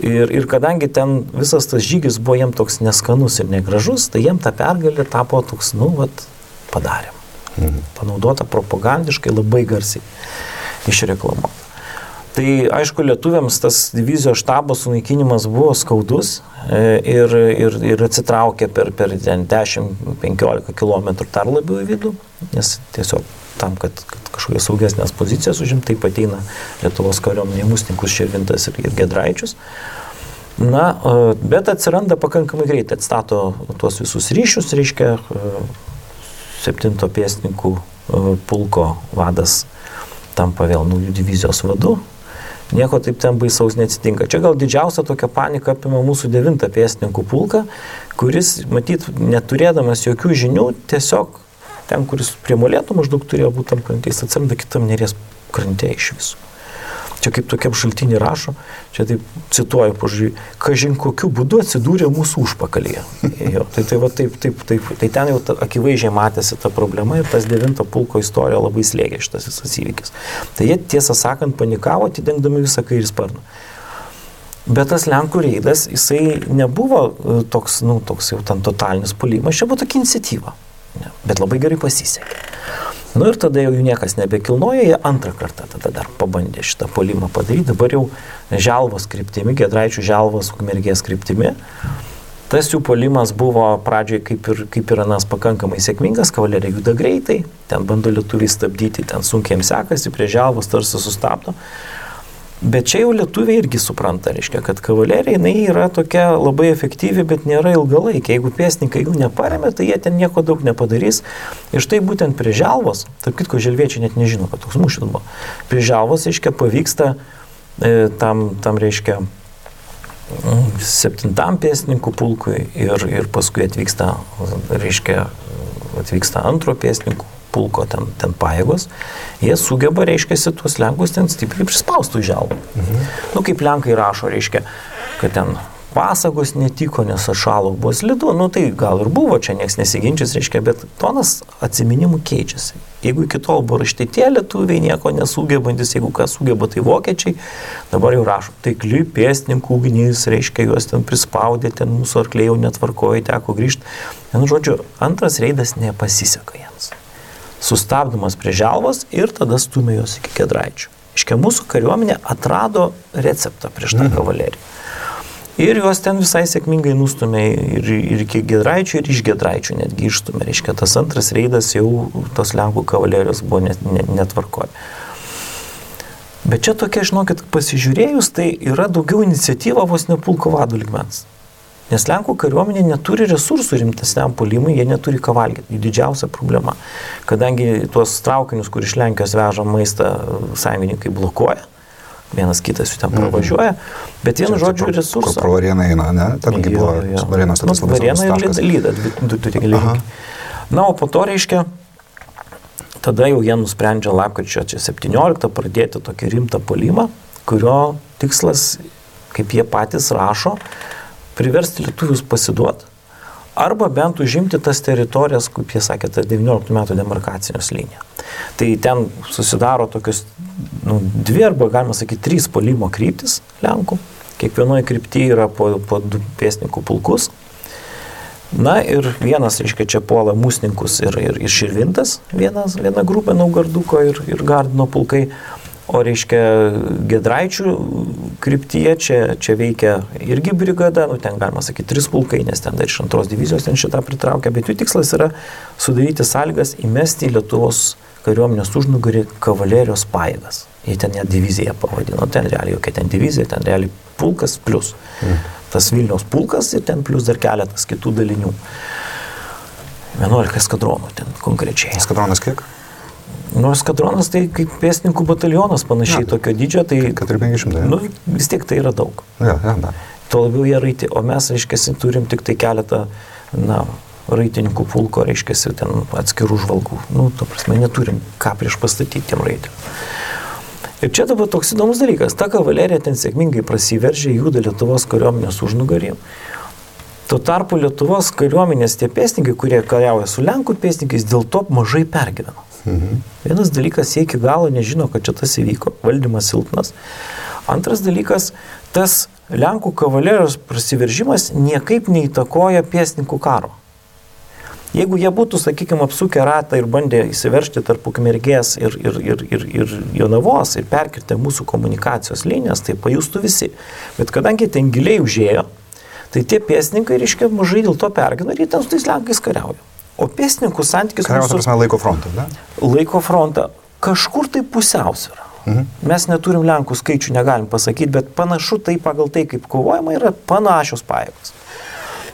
ir kadangi ten visas tas žygis buvo jiems toks neskanus ir negražus, tai jiems ta pergalė tapo toks, padarėm. Panaudota propagandiškai labai garsiai išreklamuota. Tai aišku, lietuviams tas divizijos štabo sunaikinimas buvo skaudus ir atsitraukė per 10-15 km dar labiau į vidų, nes tiesiog tam, kad kažkokias saugesnės pozicijas užimti, taip ateina Lietuvos kariuomenė į Musninkus, Širvintas ir Giedraičius. Na, bet atsiranda pakankamai greitai, atstato tuos visus ryšius, reiškia, 7 pėstininkų pulko vadas tampa vėl naujų divizijos vadu. Nieko taip ten baisaus neatsitinka. Čia gal didžiausia tokia panika apima mūsų 9 pėstininkų pulką, kuris, matyt, neturėdamas jokių žinių, tiesiog ten, kuris prie Molėtų maždaug turėjo būti tam krantės, atsiranda kitam Neries krante iš visų. Čia kaip tokiam šaltinį rašo, čia taip cituoju, pažiūrėjau, kažin kokiu būdu atsidūrė mūsų užpakalyje. Tai ten jau akivaizdžiai matėsi ta problema ir tas 9 pulko istorija labai slėgė šitas visas įvykis. Tai jie, tiesą sakant, panikavo, atidengdami visą kairį sparną. Bet tas Lenkų reidas, jisai nebuvo toks jau ten totalinis puolimas, čia buvo tokia iniciatyva, bet labai gerai pasisekė. Ir tada jau jų niekas nebekilnojo, jie antrą kartą tada dar pabandė šitą puolimą padaryti, dabar jau Želvos kryptimi, Giedraičių Želvos Ukmergės kryptimi. Tas jų puolimas buvo pradžioje kaip ir anas pakankamai sėkmingas, kavalerija juda greitai, ten bando lietuviai stabdyti, ten sunkiai jiems sekasi, prie Želvos tarsi sustabdo. Bet čia jau lietuviai irgi supranta, reiškia, kad kavalerija jinai yra tokia labai efektyvi, bet nėra ilgalaikė. Jeigu pėstininkai jų neparemė, tai jie ten nieko daug nepadarys. Ir štai būtent prie Želvos, tarp kitko želviečiai net nežino, kad toks mūšis buvo. Prie Želvos, reiškia, pavyksta tam reiškia 7 pėstininkų pulkui ir paskui atvyksta 2 pėstininkų pulko ten pajėgos, jie sugeba, reiškia, tuos Lenkus ten stipriai prispaustų į Želvą. Kaip Lenkai rašo, reiškia, kad ten pasagos netiko, nes atšalo buvo slidu, tai gal ir buvo, čia nieks nesiginčys, reiškia, bet tonas atsiminimų keičiasi. Jeigu iki tol buvo raštai tie lietuviai nieko nesugebantis, jeigu kas sugeba, tai vokiečiai, dabar jau rašo, taikli pėstininkų ugnis, reiškia, juos ten prispaudė, ten mūsų arkliai jau netvarkojo, teko grįžti. Žodžiu, antras reidas nepasiseka jiems. Sustabdomas prie Želvos ir tada stumė jos iki Giedraičių. Iškia, mūsų kariuomenė atrado receptą prieš tą kavaleriją. Ir juos ten visai sėkmingai nustumė ir iki Giedraičių, ir iš Giedraičių netgi išstumė. Reiškia, tas antras reidas jau tos Lenkų kavalerijos buvo netvarkoje. Bet čia tokia, žinokit, pasižiūrėjus, tai yra daugiau iniciatyva vos ne pulko vadų lygmens. Nes Lenkų kariuomenė neturi resursų rimtesniam puolimui, jie neturi ką valgyti. Jų didžiausia problema. Kadangi tuos traukinius, kur iš Lenkijos veža maistą, sąjungininkai blokuoja, vienas kitas jų ten pravažiuoja, bet vienu žodžiu resursą. Pro Varėną eina, ne? Tengi buvo Varėnos tas labai svarbus taškas. Varėna ir Lyda, du geležinkeliai. Na, o po to, reiškia, tada jau jie nusprendžia lapkričio 17 pradėti tokį rimtą puolimą, kurio tikslas, kaip jie patys rašo, priversti lietuvius pasiduoti arba bent užimti tas teritorijas, kaip jie sakė, ta 19 metų demarkacijos linija. Tai ten susidaro tokios dvi arba, galima sakyti, 3 puolimo kryptis Lenkų. Kiekvienoje kryptyje yra po 2 pėstininkų pulkus. Na ir vienas, reiškia, čia puola Musninkus ir Širvintas, viena grupė Naugarduko ir Gardino pulkai. O reiškia, Giedraičių kryptyje čia veikia irgi brigada, ten galima sakyti 3 pulkai, nes ten dar iš 2 divizijos ten šitą pritraukia, bet jų tikslas yra sudaryti sąlygas įmesti į Lietuvos kariuomenės užnugarį kavalerijos pajėgas. Jie ten ją diviziją pavadino, ten realiai jokia ten divizija, ten realiai pulkas plus. Tas Vilniaus pulkas ir ten plus dar keletas kitų dalinių. 11 eskadronų ten konkrečiai. Eskadronas kiek? Eskadronas tai kaip pėstininkų batalionas panašiai tokio dydžio, tai 400-500. Vis tiek tai yra daug. Ja. Tuo labiau jie raiti, o mes, reiškia, turim tik tai keletą, raitininkų pulko, reiškia, ten atskirų žvalgų. To prasme, neturim ką prieš pastatyti tiem raitiniam. Ir čia dabar toks įdomus dalykas. Ta kavalerija ten sėkmingai prasiveržė, juda Lietuvos kariuomenės užnugarį. Tuo tarpu Lietuvos kariuomenės tie pėstininkai, kurie kariauja su Lenkų pėstininkais, dėl to mažai pergyveno. Vienas dalykas, jie iki galo nežino, kad čia tas įvyko, valdymas silpnas. Antras dalykas, tas Lenkų kavalerijos prasiveržimas niekaip neįtakoja pėstininkų karo. Jeigu jie būtų, sakykime, apsukę ratą ir bandė įsiveržti tarp Ukmergės ir Jonavos ir perkirtę mūsų komunikacijos linijas, tai pajustų visi. Bet kadangi ten giliai užėjo, tai tie pėstininkai, reiškia, mažai dėl to pergina ir jie ten su tais Lenkais kariauja. O pėstininkų santykis mūsų... Laiko frontą, ne? Laiko frontą. Kažkur tai pusiausvyrą. Mes neturim Lenkų skaičių, negalim pasakyti, bet panašu tai pagal tai, kaip kovojama, yra panašios pajėgos.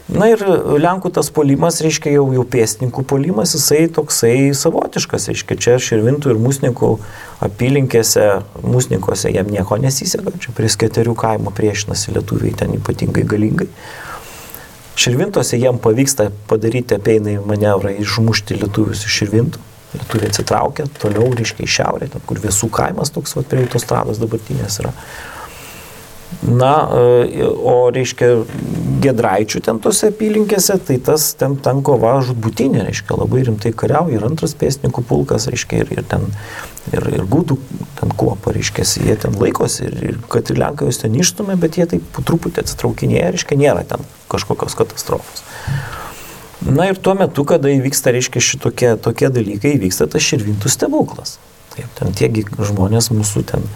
Na ir Lenkų tas puolimas, reiškia, jau pėstininkų puolimas, jisai toksai savotiškas, reiškia, čia Širvintų ir Musninkų apylinkėse, Musninkose jam nieko nesiseka, čia prie Sketerių kaimo priešinasi lietuviai ten ypatingai galingai. Širvintose jiem pavyksta padaryti apeinai manevrą, išmušti lietuvius iš Širvintų. Lietuviai atsitraukia toliau, reiškia, į šiaurę, ten, kur Viesų kaimas toks prie autostrados dabartinės yra. Na, o reiškia, Giedraičių ten tose apylinkėse, tai tas ten kova žudbutinė, reiškia, labai rimtai kariauja ir 2 pėstininkų pulkas, reiškia, ir gudų ten kuopa, reiškia, jie ten laikosi ir kad ir Lenkai jūs ten išstumė, bet jie taip po truputį atsitraukinėja, reiškia, nėra ten kažkokios katastrofos. Na ir tuo metu, kada įvyksta, reiškia, tokie dalykai, įvyksta tas Širvintų stebuklas. Taip, ten tiegi žmonės mūsų ten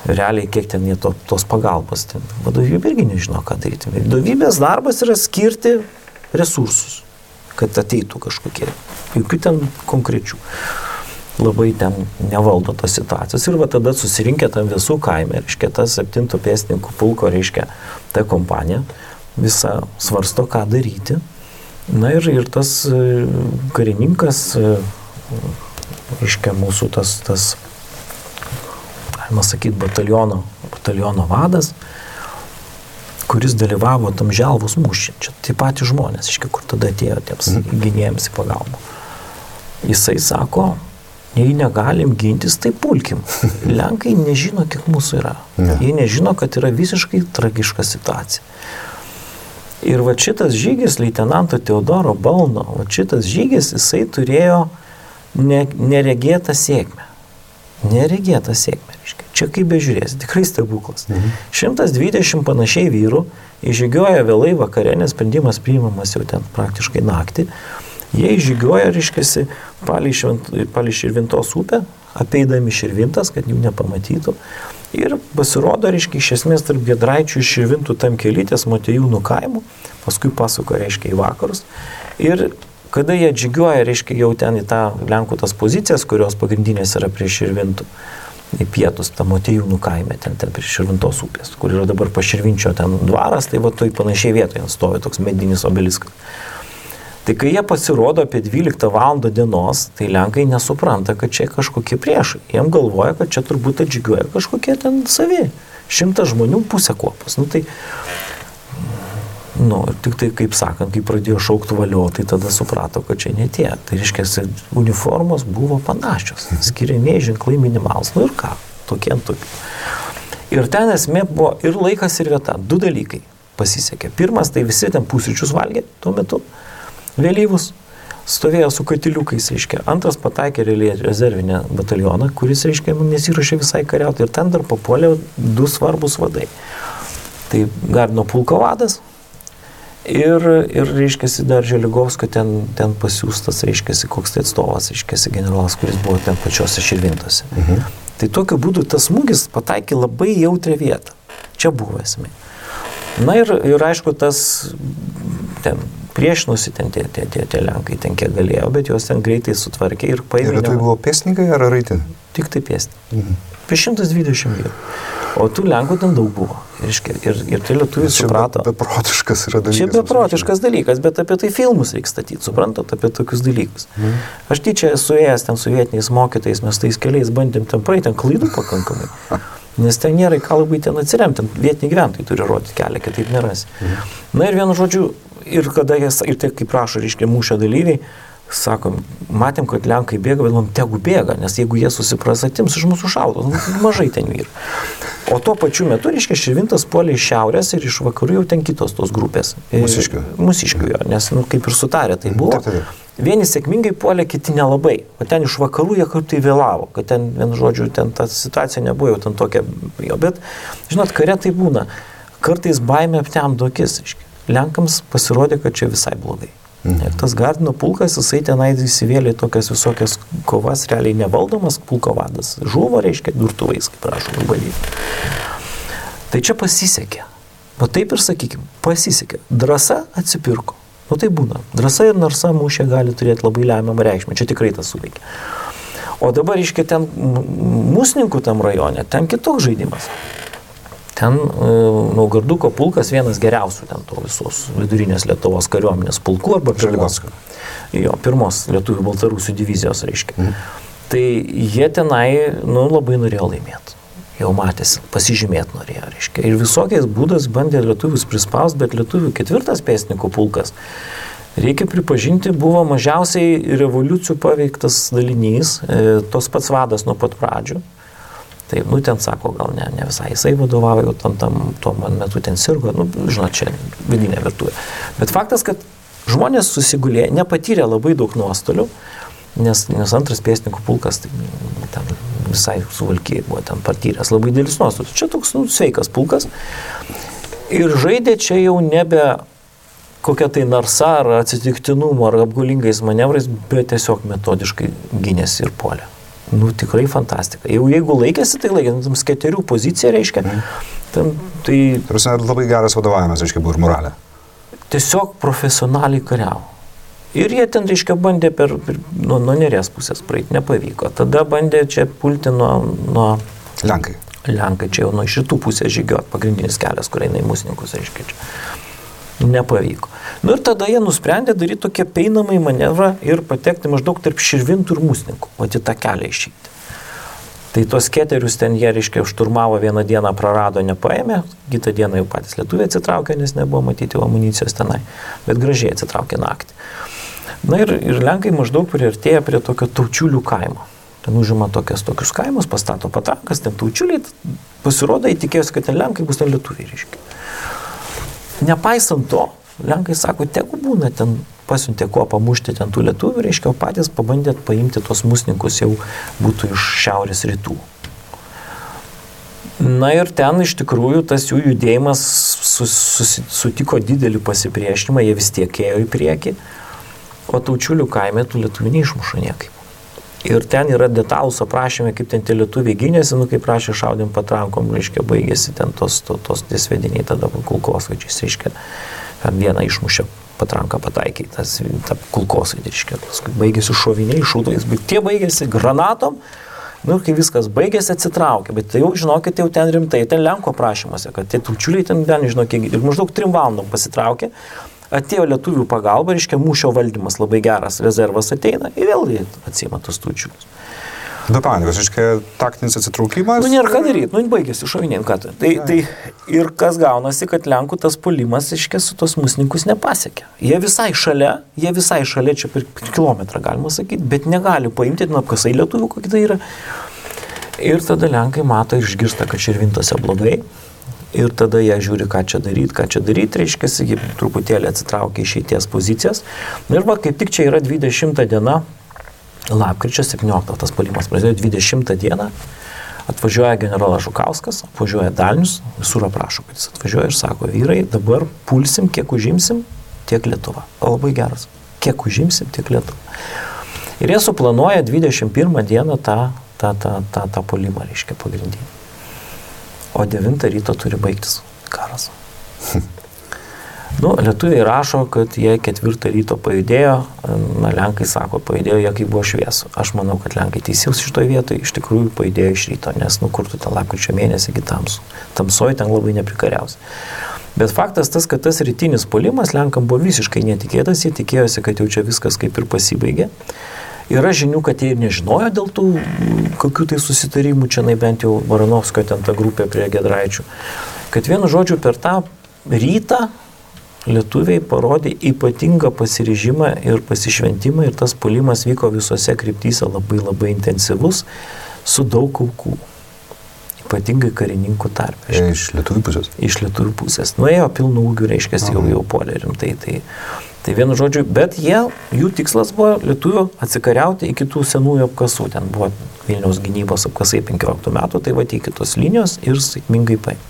realiai, kiek ten jie tos pagalbos, ten vadovybė irgi nežino, ką daryti. Vadovybės darbas yra skirti resursus, kad ateitų kažkokie, jokių ten konkrečių. Labai ten nevaldo tos situacijos ir va tada susirinkę tam Viesų kaime, reiškia, tas 7 pėstininkų pulko, reiškia, ta kompanija visa svarsto, ką daryti. Na ir tas karininkas, reiškia, mūsų tas galima sakyti, bataliono vadas, kuris dalyvavo tam Želvos mūšį. Čia tie patys žmonės, reiškia, kur tada atėjo tiems gynėjams į pagalbą. Jisai sako, jei negalim gintis, tai pulkim. Lenkai nežino, kiek mūsų yra. Jie nežino, kad yra visiškai tragiška situacija. Ir va šitas žygis, leitenanto Teodoro Balno, va šitas žygis, jisai turėjo neregėtą sėkmę. Neregėtą sėkmę, reiškia. Čia kaip bežiūrės, tikrai stebuklas. 120 panašiai vyrų įžygioja vėlai vakare, nes sprendimas priimamas jau ten praktiškai naktį. Jie įžygioja, reiškiasi, palei Širvintos upę, apeidami Širvintas, kad jų nepamatytų. Ir pasirodo, reiškia, iš esmės tarp Giedraičių ir Širvintų tam kelytės Motiejūnų kaimų, paskui pasuka, reiškia, į vakarus. Ir kada jie žygioja, reiškia, jau ten į tą Lenkų tas pozicijas, kurios pagrindinės yra prie Širvintų, į pietus, tą Motiejūnų kaime, ten prie Širvintos upės, kur yra dabar Paširvinčio ten dvaras, tai va toj panašiai vietoje stovi toks medinis obeliskas. Tai kai jie pasirodo apie 12 valandą dienos, tai Lenkai nesupranta, kad čia kažkokie priešai. Jiem galvoja, kad čia turbūt atžygiuoja kažkokie ten savi. 100 žmonių pusę kuopos. Ir tik tai, kaip sakant, kai pradėjo šaukti valio, tai tada suprato, kad čia ne tie. Tai reiškia, uniformos buvo panašios. Skiriamieji ženklai minimalus. Ir ką? Tokie ant tokių. Ir ten esmė buvo ir laikas, ir vieta. 2 dalykai pasisekė. Pirmas, tai visi ten pusryčius valgė tuo metu. vėlyvus, stovėjo su katiliukais, reiškia. Antras pataikė rezervinę batalioną, kuris, reiškia, nesiruošė visai kariauti. Ir ten dar papuolė 2 svarbus vadai. Tai Gardino pulko vadas ir reiškia, dar Želigovskio ten pasiūstas, reiškia, koks tai atstovas, reiškia, generolas, kuris buvo ten pačiose Širvintose. Tai tokiu būdu tas smūgis pataikė labai jautrią vietą. Čia buvo esmė. Na ir aišku, tas ten priešinosi ten tie lenkai, ten kiek galėjo, bet juos ten greitai sutvarkė ir paėmė. Ir tai buvo pėstininkai ar raitė? Tik tai pėstininkai. Apie 120 vyrų. O tų lenkų ten daug buvo. Ir tai lietuviai suprato. Čia beprotiškas yra dalykas. Čia beprotiškas dalykas, bet apie tai filmus reikia statyti, suprantat, apie tokius dalykus. Aš tyčia esu ėjęs ten su vietiniais mokytais, mes tais keliais bandėm ten praeiti, ten klaidų pakankamai. Nes ten nėra ką labai ten atsiremti, vietiniai gyventojai turi rodyti kelią, kitaip nerasi. Na ir vienu žodžiu, ir tai kaip prašo, reiškia, mūšio dalyviai, sakom, matėm, kad lenkai bėga, bet man tegu bėga, nes jeigu jie susipras, atims iš mūsų šaudos, mažai ten vyrų. O tuo pačiu metu, reiškia, Širvintas puolė iš šiaurės ir iš vakarų jau ten kitos tos grupės. Mūsiškių jo, nes kaip ir sutarė tai buvo. Vieni sėkmingai puolė, kiti nelabai. O ten iš vakarų jie kartai vėlavo, kad ten, vienu žodžiu, ten ta situacija nebuvo jau ten tokia. Bet, žinot, kare tai būna. Kartais baimė aptemdo akis. Lenkams pasirodė, kad čia visai blogai. Ir tas Gardino pulkas, jisai tenai įsivėlė tokias visokias kovas, realiai nevaldomas pulko vadas. Žuvo, reiškia, durtuvais, kaip prašom, valyti. Tai čia pasisekė. Va taip ir sakykim, pasisekė. Drąsa atsipirko. Nu tai būna. Drąsa ir narsa mūšė gali turėti labai lemiamą reikšmę. Čia tikrai tas suveikia. O dabar, reiškia, ten Musninkų tam rajone, ten kitoks žaidimas. Ten Naugarduko pulkas vienas geriausių ten to visos vidurinės Lietuvos kariuomenės pulkų arba Želigovskio. Jo, pirmos lietuvių baltarusių divizijos, reiškia. Tai jie tenai, labai norėjo laimėti. Jau matėsi, pasižymėti norėjo, reiškia. Ir visokiais būdais bandė lietuvius prispaust, bet lietuvių 4. pėstininkų pulkas, reikia pripažinti, buvo mažiausiai revoliucijų paveiktas dalinys, tos pats vadas nuo pat pradžių. Tai, ten sako, gal ne visai jisai vadovauja, tuo man metu ten sirgo, žinot, čia vidinė virtuvė. Bet faktas, kad žmonės susigulė, nepatyrė labai daug nuostolių, nes 2. pėstininkų pulkas ten visai suvalkiai buvo ten patyręs labai dėlis nuostolius. Čia toks sveikas pulkas. Ir žaidė čia jau nebe kokia tai narsa ar atsitiktinumo ar apgaulingais manevrais, bet tiesiog metodiškai gynėsi ir puolė. Tikrai fantastika. Jeigu laikėsi, tai laikėsi, skėterių pozicija, reiškia. Tai labai geras vadovavimas, reiškia, buvo ir moralė. Tiesiog profesionaliai kariavo. Ir jie ten, reiškia, bandė nuo Neries pusės praeiti, nepavyko. Tada bandė čia pulti nuo Lenkai. Lenkai čia jau nuo šitų pusės žygiuot, pagrindinis kelias, kur eina į Musninkus, reiškia čia. Nepavyko. Ir tada jie nusprendė daryti tokią peinamą manevrą ir patekti maždaug tarp Širvintų ir Musninkų, o į tą kelią išeiti. Tai tos keterius ten jie, reiškia, šturmavo vieną dieną, prarado, nepaėmė, kitą dieną jau patys lietuviai atsitraukė, nes nebuvo matyti amunicijos tenai, bet gražiai atsitraukė naktį. Na ir Lenkai maždaug priartėja prie tokio Taučiulių kaimo. Ten užima tokius kaimus, pastato patrankas, ten Taučiuliai, pasirodo, įtikėjosi, kad ten Lenkai bus ten lietuviai, reiškia. Nepaisant to, Lenkai sako, tegu būna ten, pasiuntė kuo pamušti ten tų lietuvių, reiškia, o patys pabandė paimti tos Musninkus jau būtų iš šiaurės rytų. Na ir ten iš tikrųjų tas jų judėjimas sutiko didelį pasipriešinimą, jie vis tiek ėjo į priekį, o Taučiulių kaime tų lietuvių neišmuša niekaip. Ir ten yra detalūs aprašymai, kaip ten tie lietuviai gynėsi, kaip prašė šaudėm patrankom, reiškia, baigėsi ten tos tiesvediniai tada kulkosvaidžiais, reiškia, vieną išmušė patranką pataikiai, tą kulkosvaidį, reiškia, baigėsi šoviniai, šūdais, bet tie baigėsi granatom, kai viskas baigėsi, atsitraukė, bet tai jau, žinokit, jau ten rimtai, ten Lenko aprašymuose, kad tie Taučiuliai ten, žinokit, ir maždaug 3 valandom pasitraukė, atėjo lietuvių pagalba, reiškia, mūšio valdymas labai geras, rezervas ateina ir vėl atsima tos Taučiulius. Be panikos, reiškia, taktinis atsitraukimas. Nėra ką daryti, baigėsi šoviniai, ką tai. Ir kas gaunasi, kad Lenkų tas puolimas, reiškia, su tos Musninkus nepasiekė. Jie visai šalia, čia per kilometrą galima sakyti, bet negali paimti, apkasai lietuvių, kokie tai yra. Ir tada Lenkai mato ir išgirsta, kad Širvintose blogai. Ir tada jie žiūri, ką čia daryti, reiškia, jie truputėlį atsitraukia išeities pozicijas. Ir va, kaip tik čia yra 20 diena, lapkričio 17, tas puolimas prasidėjo 20 dieną, atvažiuoja generolas Žukauskas, atvažiuoja dalinius, visur aprašo, kad jis atvažiuoja ir sako, vyrai, dabar pulsim, kiek užimsim, tiek Lietuva. O labai geras, kiek užimsim, tiek Lietuva. Ir jie suplanuoja 21 dieną tą puolimą, reiškia, pagrindinį. O 9 ryto turi baigtis karas. Lietuviai rašo, kad jie 4 ryto pajudėjo, lenkai sako, pajudėjo jie, kai buvo šviesu. Aš manau, kad lenkai teisėjus šitoje vietoje iš tikrųjų pajudėjo iš ryto, nes kur tu ten lapkričio mėnesį iki tamsų. Tamsoji ten labai neprekariausi. Bet faktas tas, kad tas rytinis puolimas lenkam buvo visiškai netikėtas, jie tikėjosi, kad jau čia viskas kaip ir pasibaigė. Yra žinių, kad jie ir nežinojo dėl tų kokių tai susitarimų, čia bent jau Baranovskio ten ta grupė prie Giedraičių. Kad vienu žodžiu per tą rytą lietuviai parodė ypatingą pasiryžimą ir pasišventimą ir tas puolimas vyko visose kryptyse labai labai intensyvus, su daug aukų. Ypatingai karininkų tarpe. Iš lietuvių pusės? Iš lietuvių pusės. Nuėjo pilnų ūgių, reiškia, jau puolė rimtai. Tai vienu žodžiu, bet jų tikslas buvo lietuvių atsikariauti iki tų senųjų apkasų. Ten buvo Vilniaus gynybos apkasai 15 metų, tai iki tos linijos ir sėkmingai paėmė.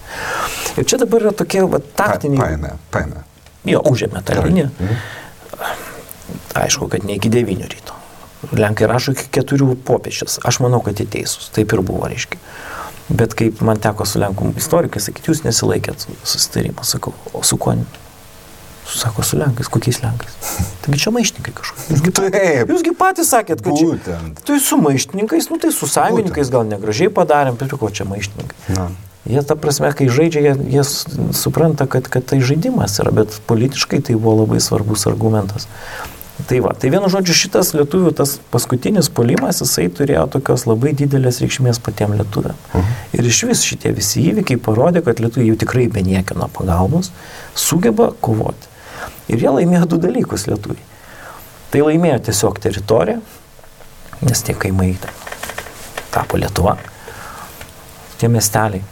Ir čia dabar yra tokie taktiniai... Paėmė. Jo, užėmė tą liniją. Aišku, kad ne iki 9 ryto. Lenkai rašo iki 4 popiečės. Aš manau, kad jie teisūs. Taip ir buvo, reiškia. Bet kaip man teko su lenkų istorikai sakyti, jūs nesilaikėt susitarimą. Sakau, o su kuo? Sako, su lenkais. Kokiais lenkais? Taigi čia maištininkai kažkokie. Jūsgi patys sakėt, kad čia... Tai su maištininkais, tai su sąjungininkais gal negražiai padarėm, bet ko čia maištininkai. Jie, ta prasme, kai žaidžia, jie supranta, kad tai žaidimas yra, bet politiškai tai buvo labai svarbus argumentas. Tai vienu žodžiu, šitas lietuvių, tas paskutinis puolimas, jisai turėjo tokios labai didelės reikšmės patiem lietuviam. Ir iš vis šitie visi įvykiai parodė, kad lietuviai jau tikrai be niekieno pagalbos sugeba kovoti. Ir jie laimėjo 2 dalykus lietuviai. Tai laimėjo tiesiog teritoriją, nes tie kaimai tapo Lietuva, tie miesteliai.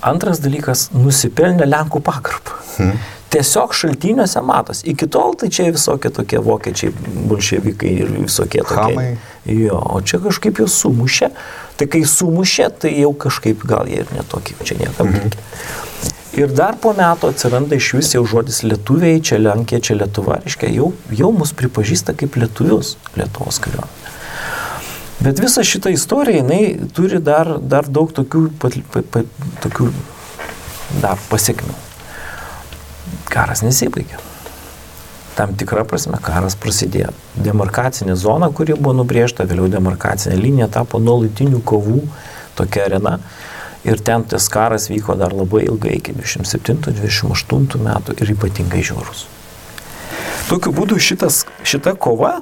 Antras dalykas, nusipelnė Lenkų pagarbą. Tiesiog šaltiniuose matos. Iki tol tai čia visokie tokie vokiečiai, bolševikai ir visokie tokie. Hamai. Jo, o čia kažkaip jau sumušė. Tai kai sumušė, tai jau kažkaip gal jie ir netokie, čia niekam reikia. Ir dar po metų atsiranda iš vis jau žodis lietuviai, čia Lenkija, čia Lietuva, reiškia, jau mus pripažįsta kaip lietuvius Lietuvos kariuomenė. Bet visa šita istorija, jinai turi dar daug tokių dar pasiekmių. Karas nesibaigė. Tam tikra prasme karas prasidėjo. Demarkacinė zona, kuri buvo nubrėžta, vėliau demarkacinė linija tapo nuolatinių kovų tokia arena. Ir ten tas karas vyko dar labai ilgai, iki 27-28 metų ir ypatingai žiaurus. Tokiu būdu šita kova,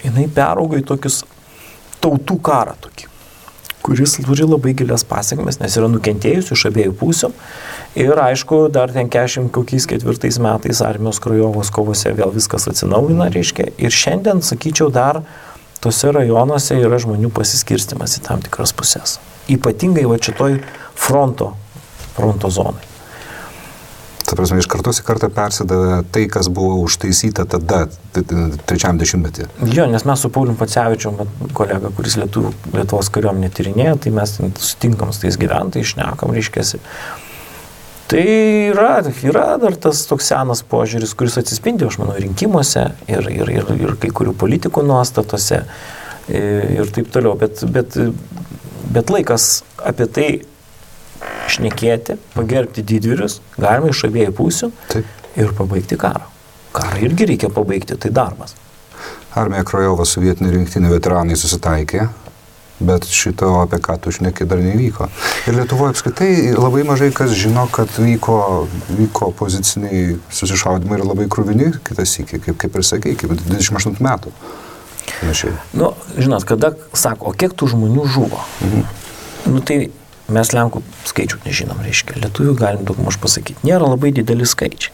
jinai peraugo į tokius tautų karą tokį, kuris turi labai gilias pasiekmes, nes yra nukentėjusių iš abiejų pusių. Ir aišku, dar ten 44 metais armijos Krajovos kovose vėl viskas atsinaujina, reiškia. Ir šiandien, sakyčiau, dar tose rajonuose yra žmonių pasiskirstimas į tam tikras pusės. Ypatingai šitoj fronto zonai. Ta prasme, iš kartos į kartą persidavė tai, kas buvo užtaisyta tada, 3 dešimtmetį. Jo, nes mes su Paulium Pacevičium, kolega, kuris Lietuvos kariuomenę tyrinėja, tai mes sutinkam su tais gyventojais, šnekam, reiškiasi. Tai yra dar tas toks senas požiūris, kuris atsispindi, aš manau, rinkimuose ir kai kurių politikų nuostatose ir taip toliau. Bet laikas apie tai šnekėti, pagerbti didvyrius, galima iš abiejų pusių ir pabaigti karą. Karą irgi reikia pabaigti, tai darbas. Armija Krajova su vietinių rinktinių veteranai susitaikė, bet šito, apie ką tu šneki, dar nevyko. Ir Lietuvoje apskritai labai mažai kas žino, kad vyko poziciniai susišaudimai ir labai kruvini kitas iki, kaip ir sakei, kaip 28 metų. Žinot, kada sako, o kiek tų žmonių žuvo? Tai mes Lenkų skaičių nežinom, reiškia. Lietuvių galim daugmaž pasakyti. Nėra labai dideli skaičiai.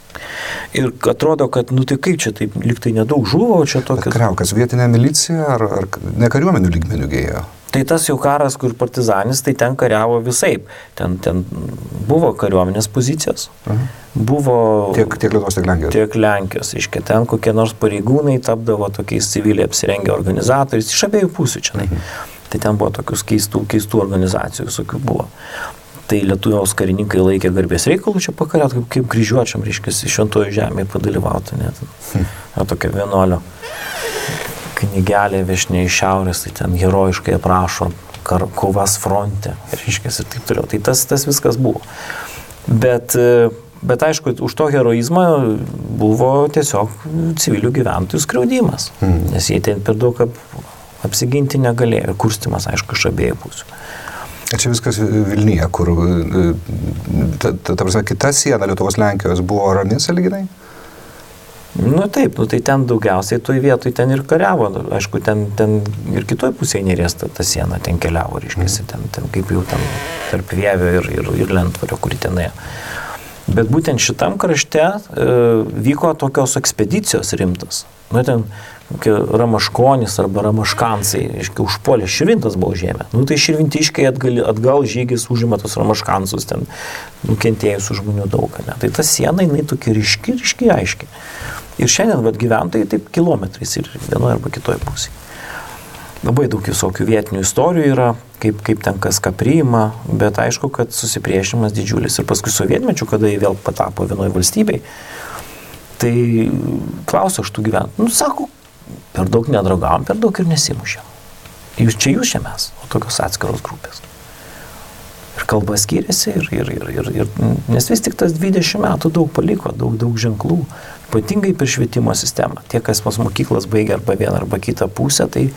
Ir atrodo, kad, tai kaip čia taip, lyg tai nedaug žuvo, o čia tokias... Kariaukas vietinė milicija ar ne kariuomenių lygmenių gėjo? Tai tas jau karas, kur partizanis, tai ten kariavo visaip. Ten buvo kariuomenės pozicijos. Buvo tiek Lietuvos, tiek Lenkijos. Tiek Lenkijos, iškia, ten kokie nors pareigūnai tapdavo tokiais civiliai apsirengę organizatoriais, iš abiejų pusių čia. Tai ten buvo tokius keistų organizacijų, visokių buvo. Tai Lietuvos karininkai laikė garbės reikalų čia pakariat, kaip kryžiuočiam, reiškia, šventojo žemėje padalyvauti. Tokia vienuolio knygelė viešinė iš šiaurės, tai ten herojiškai aprašo kovas fronte, reiškia, ir taip toliau. Tai tas viskas buvo. Bet aišku, už to heroizmą buvo tiesiog civilių gyventojų skriaudimas, nes jie ten per daug apsiginti negalėjo, ir kurstimas, aišku, iš abiejų pusių. Čia viskas Vilniuje, kur, ta prasme, kita siena Lietuvos Lenkijos buvo rami sąlyginai? Nu taip, tai ten daugiausiai toj vietoj ten ir kariavo, aišku, ten ir kitoj pusėje Neries ta siena ten keliavo, reiškiasi, ten kaip jau ten tarp Vievio ir Lentvario, kuri tenai. Bet būtent šitam krašte vyko tokios ekspedicijos rimtas. Nu, ten Ramaškonis arba Ramaškansai, reiškia, užpuolė Širvintas buvo žemė. Nu, tai širvintiškai atgal žygis užima tos Ramaškansus, ten nukentėjusių žmonių daug. Ne? Tai ta siena, jinai tokia ryški, aiški. Ir šiandien gyventojai taip kilometrais ir vienoje arba kitoje pusėje. Labai daug visokių vietinių istorijų yra, kaip ten kas ką priima, bet aišku, kad susipriešimas didžiulis. Ir paskui sovietmečių, kada jie vėl patapo vienoje valstybei, tai klausiu aš tų gyventojų. Nu, sako, per daug nedraugavom, per daug ir nesimušėm. Jūs čia mes, o tokios atskiros grupės. Ir kalba skiriasi, nes vis tik tas 20 metų daug paliko, daug ženklų, ypatingai per švietimo sistemą. Tie, kas pas mokyklas baigia arba vieną arba kitą pusę, tai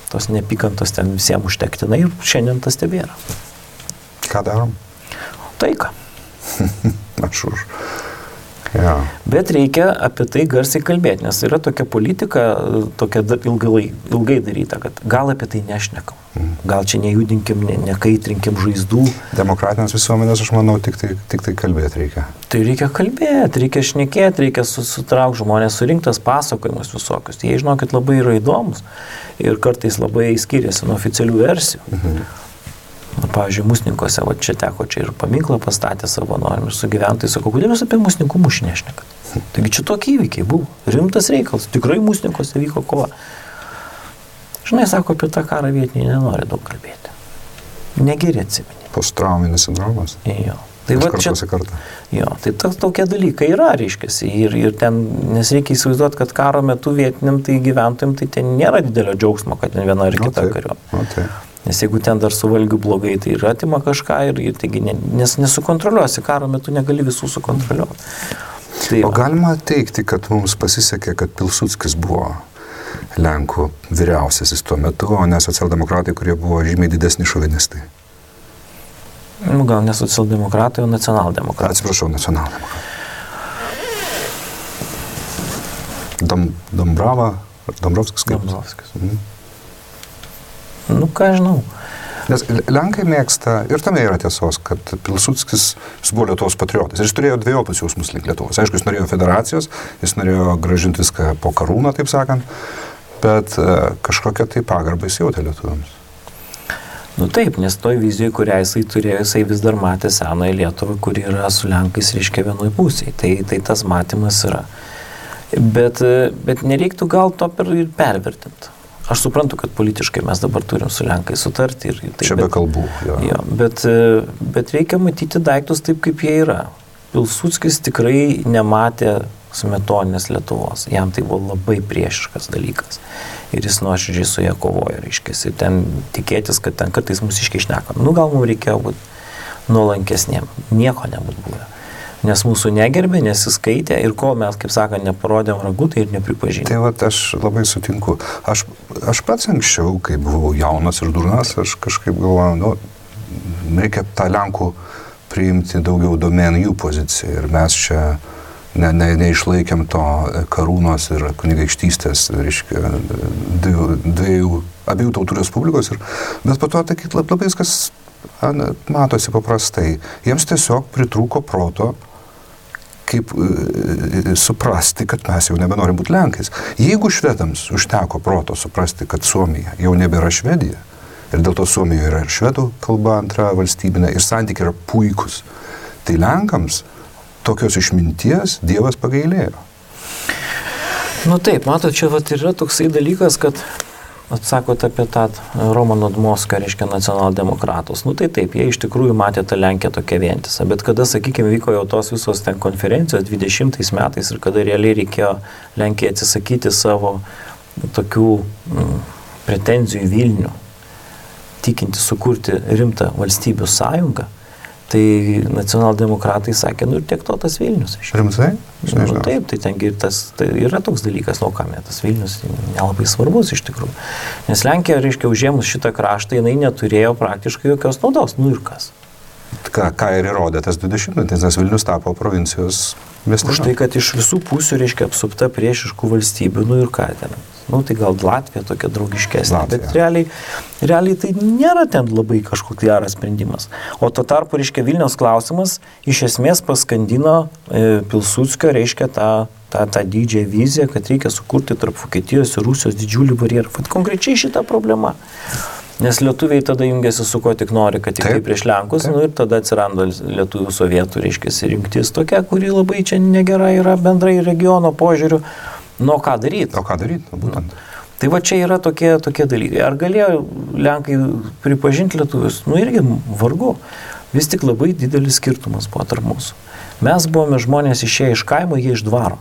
tos neapykantos ten visiems užtektinai ir šiandien tas tebėra. Ką darom? Taiką. Aš už. Ja. Bet reikia apie tai garsiai kalbėti, nes yra tokia politika, tokia ilgai daryta, kad gal apie tai nešnekam. Gal čia nejudinkim, nekaitrinkim žaizdų. Demokratinės visuomenės, aš manau, tik tai kalbėti reikia. Tai reikia kalbėti, reikia šnekėti, reikia sutraukti žmonės, surinktas pasakojimus visokius. Jie, žinokit, labai yra įdomus ir kartais labai skiriasi nuo oficialių versijų. Pavyzdžiui, Musninkose, čia teko ir paminklą pastatė savanoriam ir su gyventojais, sako, kodėl jūs apie Musninkų mūšį nešnekat? Taigi čia tokie įvykiai buvo, rimtas reikalas, tikrai Musninkose vyko kova. Žinai, sako, apie tą karą vietiniai nenori daug kalbėti. Negeri atsimeni. Posttrauminis sindromas? Jo. Tai va čia, jo, tai tokie dalykai yra, reiškiasi, ir ten, nes reikia įsivaizduoti, kad karo metu vietiniam tai gyventojim, tai ten nėra didelio džiaugsmo, kad ten viena ar kita kariuomenė. Nes jeigu ten dar su valgiu blogai, tai ir atima kažką, taigi nes nesukontroliuosi, karo metu negali visų sukontroliuoti. Tai o galima teikti, kad mums pasisekė, kad Pilsudskis buvo Lenkų vyriausiasis tuo metu, o ne socialdemokratai, kurie buvo žymiai didesni šovinistai? Nu, gal ne socialdemokratai, o nacionaldemokratai. Atsiprašau, nacionaldemokratai. Dombrovskis kaip? Dombrovskis. Nu, ką žinau. Nes Lenkai mėgsta, ir tame yra tiesos, kad Pilsudskis buvo Lietuvos patriotas. Ir jis turėjo dvejopus jausmus link Lietuvos. Aišku, jis norėjo federacijos, jis norėjo grąžinti viską po karūną, taip sakant, bet kažkokią tai pagarbą jis jautė lietuviams. Nu taip, nes toj vizijoje, kurią jisai turėjo, jisai vis dar matė senąją Lietuvą, kuri yra su Lenkais, reiškia, vienoj pusėje. Tai tas matymas yra. Bet nereiktų gal to ir pervertinti. Aš suprantu, kad politiškai mes dabar turim su Lenkai sutarti. Čia be kalbų. Jo, bet reikia matyti daiktus taip, kaip jie yra. Pilsudskis tikrai nematė smetoninės Lietuvos. Jam tai buvo labai priešiškas dalykas. Ir jis nuoširdžiai su ją kovojo, reiškia. Ir ten tikėtis, kad ten kartais mūsiškai šneka. Nu, gal mums reikėjo būti nuolankesniem. Nieko nebūtų buvę. Nes mūsų negerbė, nesiskaitė ir kol mes, kaip sakant, neparodėm ragų, tai ir nepripažinė. Tai vat, aš labai sutinku. Aš pats anksčiau, kai buvau jaunas ir durnas, aš kažkaip galvojau, reikia tą Lenkų priimti daugiau domėn jų poziciją. Ir mes čia neišlaikėm to karūnos ir kunigaikštystės, reiškia, abiejų tautų respublikos. Bet po to labai viskas matosi paprastai. Jiems tiesiog pritrūko proto, kaip suprasti, kad mes jau nebenorim būti Lenkais. Jeigu švedams užteko proto suprasti, kad Suomija jau nebėra Švedija, Ir dėl to Suomijoje yra ir švedų kalba antra valstybinė, ir santykiai yra puikus. Tai Lenkams tokios išminties Dievas pagailėjo. Nu taip, matot, čia vat yra toksai dalykas, kad atsakot apie tą Romano Dmoską, reiškia nacionaldemokratus. Nu tai taip, jie iš tikrųjų matė tą Lenkiją tokia vientisą, bet kada, sakykime, vyko jau tos visos ten konferencijos 20 metais ir kada realiai reikėjo Lenkijai atsisakyti savo tokių pretenzijų į Vilnių, tikinti sukurti rimtą valstybių sąjungą, tai nacionaldemokratai sakė, nu ir tiek to tas Vilnius. Rimtai? Nu, taip, tai tengi tai yra toks dalykas, nu kam, tas Vilnius nelabai svarbus iš tikrųjų. Nes Lenkija, reiškia, užėmus šitą kraštą, jinai neturėjo praktiškai jokios naudos, nu ir kas. Ką ir įrodė tas 20-metis, nes Vilnius tapo provincijos miestas. Už tai, kad iš visų pusių, reiškia, apsupta priešiškų valstybių, nu ir ką ten. Nu tai gal Latvija tokia draugiškesnė, bet realiai tai nėra ten labai kažkoks geras sprendimas. O tuo tarpu, reiškia, Vilniaus klausimas iš esmės paskandino Pilsudskio, reiškia, tą didžiąją viziją, kad reikia sukurti tarp Vokietijos ir Rusijos didžiulį barjerą. Vat konkrečiai šita problema. Nes lietuviai tada jungiasi su ko tik nori, kad tik tai prieš Lenkus, nu ir tada atsiranda lietuvių sovietų, reiškia, rinktis tokia, kuri labai čia negera yra bendrai regiono požiūriu. Nu, ką daryti? O ką daryti, būtent. Tai va čia yra tokie dalykai. Ar galėjo Lenkai pripažinti lietuvius? Nu irgi vargu. Vis tik labai didelis skirtumas buvo tarp mūsų. Mes buvome žmonės išėję iš kaimo, jie iš dvaro.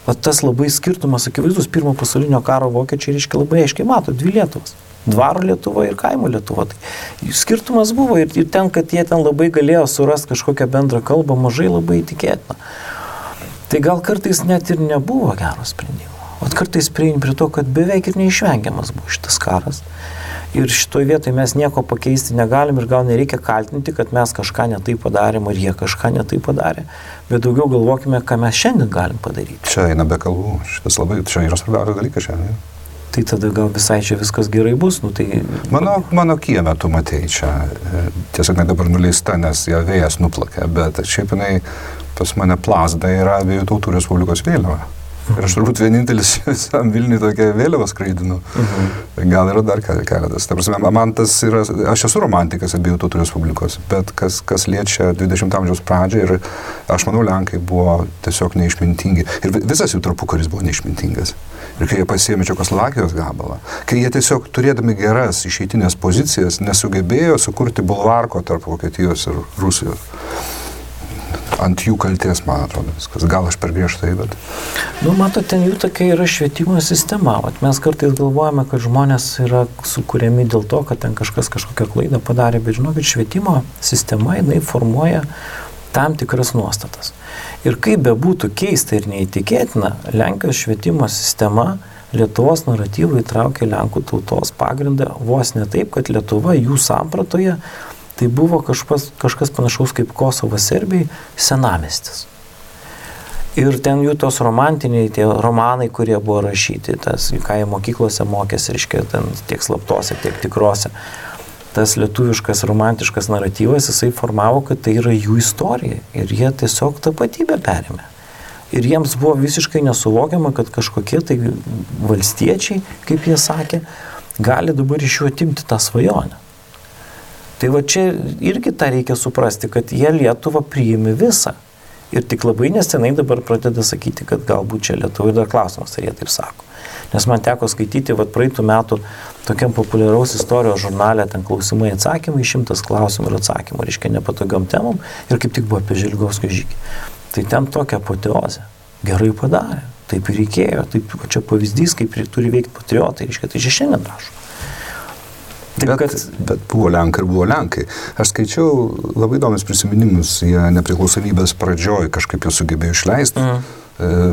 O tas labai skirtumas, akivaizdus, pirmo pasaulinio karo vokiečiai, reiškia, labai aiškiai mato, dvi Lietuvas. Dvaro Lietuva ir kaimo Lietuva. Tai skirtumas buvo ir ten, kad jie ten labai galėjo surasti kažkokią bendrą kalbą, mažai labai tikėtina. Tai gal kartais net ir nebuvo gero sprendimo. O kartais prieini prie to, kad beveik ir neišvengiamas buvo šitas karas. Ir šitoje vietoje mes nieko pakeisti negalim ir gal nereikia kaltinti, kad mes kažką netai padarėm ar jie kažką netai padarė. Bet daugiau galvokime, ką mes šiandien galim padaryti. Čia eina be kalbų. Čia yra svarbiausias dalykas šiandien. Tai tada gal visai čia viskas gerai bus. Nu, tai... Mano kieme tu matei čia. Tiesiog ne dabar nuleista, nes ją vėjas nuplakė, bet šiaip jinai pas mane plazda yra Abiejų Tautų Respublikos vėliava. Ir aš turbūt vienintelis visam Vilniui tokią vėliavą skraidinu. Gal yra dar keletas. Ta prasme, man tas yra, aš esu romantikas Abiejų Tautų Respublikos, bet kas liečia 20 amžiaus pradžią ir aš manau, Lenkai buvo tiesiog neišmintingi. Ir visas jų tarpukaris buvo neišmintingas. Ir kai jie pasiėmė Čekoslovakijos gabalą, kai jie tiesiog turėdami geras išeitinės pozicijas nesugebėjo sukurti bulvarko tarp Vokietijos ir Rusijos. Ant jų kaltės, man atrodo, viskas. Gal aš per griežtai, bet... Nu, matot, ten jų tokia yra švietimo sistema. Mes kartais galvojame, kad žmonės yra sukūrėmi dėl to, kad ten kažkas kažkokią klaidą padarė, bet žinokit, švietimo sistema, jinai formuoja tam tikras nuostatas. Ir kaip bebūtų keista ir neįtikėtina, Lenkijos švietimo sistema Lietuvos naratyvą įtraukė Lenkų tautos pagrindą vos ne taip, kad Lietuva jų sampratoje tai buvo kažkas panašaus kaip Kosovas Serbijai, senamiestis. Ir ten jų tos romantiniai, tie romanai, kurie buvo rašyti, tas, ką jie mokyklose mokėsi, reiškia, ten tiek slaptose, tiek tikrose. Tas lietuviškas romantiškas naratyvas, jisai formavo, kad tai yra jų istorija. Ir jie tiesiog tapatybę perėmė. Ir jiems buvo visiškai nesuvokiama, kad kažkokie tai valstiečiai, kaip jie sakė, gali dabar iš jų atimti tą svajonę. Tai va čia irgi tą reikia suprasti, kad jie Lietuvą priimi visą. Ir tik labai nesenai dabar pradeda sakyti, kad galbūt čia Lietuva ir dar klausimas, ar jie taip sako. Nes man teko skaityti praeitų metų tokiam populiaraus istorijos žurnale, ten klausimai atsakymai, 100 klausimų ir atsakymų, reiškia nepatogiom temom, ir kaip tik buvo apie Želgovskio žygį. Tai ten tokia apoteozė. Gerai padarė, taip ir reikėjo, taip čia pavyzdys, kaip turi veikti patriotai, reiškia, tai čia šiandien rašo. Bet buvo Lenkai ir buvo Lenkai. Aš skaičiau labai įdomius prisiminimus, jie nepriklausomybės pradžioj kažkaip jau sugebėjo išleisti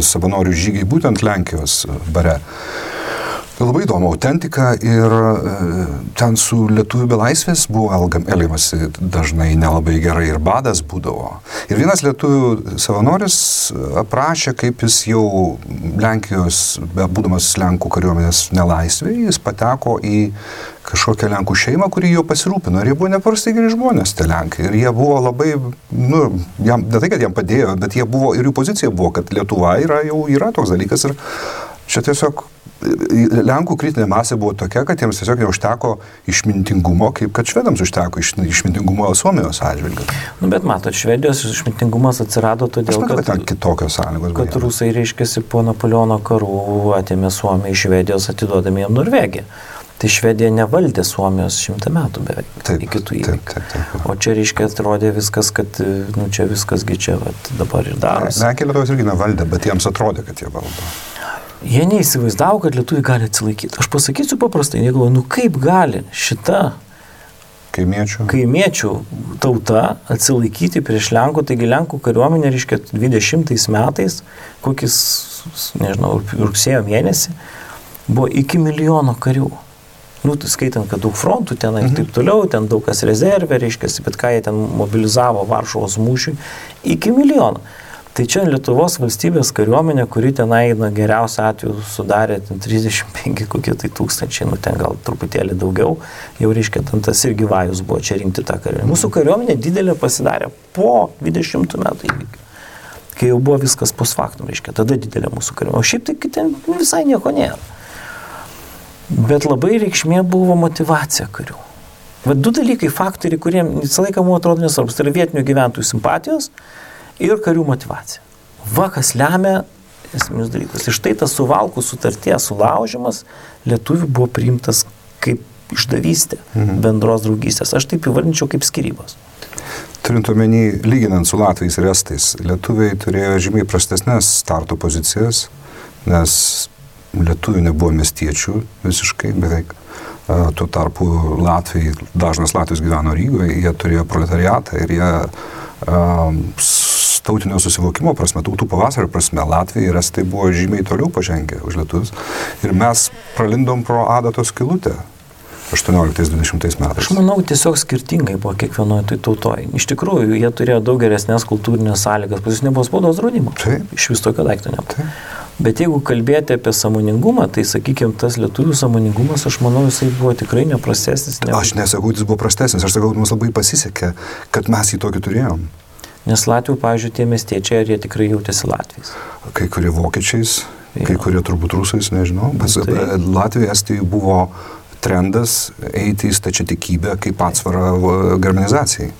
savanorių žygiai būtent Lenkijos bare. Labai įdomu, autentika ir ten su lietuvių belaisvės buvo elgiamasi dažnai nelabai gerai ir badas būdavo. Ir vienas lietuvių savanoris aprašė, kaip jis jau Lenkijos, būdamas Lenkų kariuomenės nelaisvėje, jis pateko į kažkokią Lenkų šeimą, kuri jo pasirūpino. Ir jie buvo nepaprastai geri žmonės, tie Lenkai. Ir jie buvo labai, ne tai, kad jam padėjo, bet jie buvo, ir jų pozicija buvo, kad Lietuva yra toks dalykas. Ir čia tiesiog Lenkų kritinė masė buvo tokia, kad jiems tiesiog neužteko išmintingumo, kaip kad švedams užteko išmintingumo Suomijos atžvilgiu. Nu, bet matot, Švedijos išmintingumas atsirado todėl, kad kitokios sąlygos. Kad rusai, reiškiasi, po Napoleono karų atėmė Suomiją iš Švedijos, atidodami jam Norvegiją. Tai Švedija nevaldė Suomijos 100 metų beveik. Taip, iki tų įvykių. Taip. O čia, reiškia, atrodė viskas, kad, čia viskasgi čia dabar ir darosi. Lenkija Lietuvos irgi nevaldė, bet jiems atrodė, kad jie valdo. Jie neįsivaizdavo, kad lietuviai gali atsilaikyti. Aš pasakysiu paprastai, negalvoju, kaip gali šita kaimiečių tauta atsilaikyti prieš Lenkų, taigi Lenkų kariuomenė, reiškia, 20 metais, kokis, nežinau, rugsėjo mėnesį, buvo iki 1 milijono karių. Skaitant, kad daug frontų ten ir taip toliau, ten daug kas rezervė, reiškia, bet ką jie ten mobilizavo Varšuvos mūšiui, iki 1 milijono. Tai čia Lietuvos valstybės kariuomenė, kuri tenai geriausiu atveju sudarė 35 kokie tai tūkstančiai, ten gal truputėlį daugiau, jau reiškia, tas irgi vajus buvo čia rinkti tą kariuomenę. Mūsų kariuomenė didelė pasidarė po 20 metų įvykių, kai jau buvo viskas post factum, reiškia, tada didelė mūsų kariuomenė. O šiaip tai ten visai nieko nėra. Bet labai reikšmė buvo motyvacija karių. Bet 2 dalykai, faktoriai, kurie visą laiką mums atrodo nesvarbus, tai yra vietinių gyventojų simpatijos ir karių motyvacija. Kas lemia esminius dalykus. Ir štai tas Suvalkų sutarties sulaužimas lietuvių buvo priimtas kaip išdavystė bendros draugystės. Aš taip įvardinčiau kaip skyrybos. Turint omeny, lyginant su latviais ir estais, lietuviai turėjo žymiai prastesnės starto pozicijas, nes lietuvių nebuvo miestiečių visiškai beveik. Tuo tarpu dažnas Latvijos gyveno Rygoje, jie turėjo proletariatą ir jie tautinio susivokimo prasme, tautų pavasario prasme, Latvija ir estai buvo žymiai toliau pažengę už lietuvius. Ir mes pralindom pro adatos skylutę 18-20 metais. Aš manau, tiesiog skirtingai buvo kiekvienoje tai tautoje. Iš tikrųjų, jie turėjo daug geresnės kultūrinės sąlygas, pas jis nebuvo spaudos draudimo. Taip. Iš vis tokio daikto nebuvo. Bet jeigu kalbėti apie sąmoningumą, tai, sakykime, tas lietuvių sąmoningumas, aš manau, jisai buvo tikrai neprastesnis. Aš nesakau, jis buvo prastesnis, aš sakau, mums labai pasisekė, kad mes jį tokį turėjom. Nes Latvių, pavyzdžiui, tie miestiečiai, ar jie tikrai jautėsi Latviais? Kai kurie vokiečiais, kai kurie turbūt rusais, nežinau. Latvijai, Estijai buvo trendas eiti į stačiatikybę kaip atsvarą germanizacijai.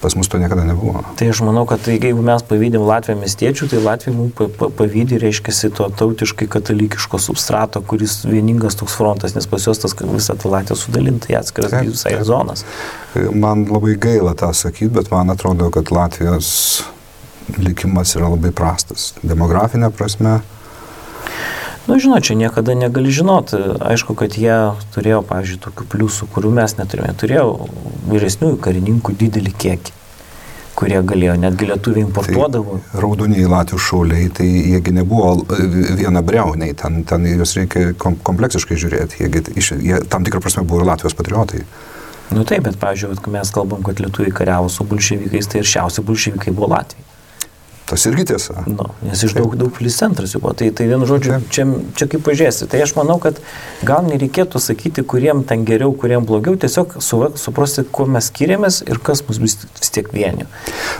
Pas mus to niekada nebuvo. Tai aš manau, kad jeigu mes pavydim Latviją miestiečių, tai Latvija mums pavydi, reiškiasi, to tautiškai katalikiško substrato, kuris vieningas toks frontas, nes pas juos tas visą tą Latviją sudalinta į atskiras visai zonas. Man labai gaila tą sakyti, bet man atrodo, kad Latvijos likimas yra labai prastas. Demografinė prasme. Žinot, čia niekada negali žinoti. Aišku, kad jie turėjo, pavyzdžiui, tokių pliusų, kurių mes neturėjome. Turėjo vyresniųjų karininkų didelį kiekį, kurie galėjo, netgi lietuviai importuodavo. Tai raudoniai Latvių šauliai, tai jiegi nebuvo vienabriauniai, ten juos reikia kompleksiškai žiūrėti. Jie tam tikrą prasme buvo ir Latvijos patriotai. Taip, bet, pavyzdžiui, mes kalbam, kad lietuviai kariavo su bolševikais, tai ir šiausi bolševikai buvo Latvijai. Tas irgi tiesa. Nes iš daug pilis centras jau buvo. Tai vienu žodžiu, čia kaip pažiūrėsi. Tai aš manau, kad gal nereikėtų sakyti, kuriem ten geriau, kuriem blogiau, tiesiog suprasti, kuo mes skiriamės ir kas mus vis tiek vienio.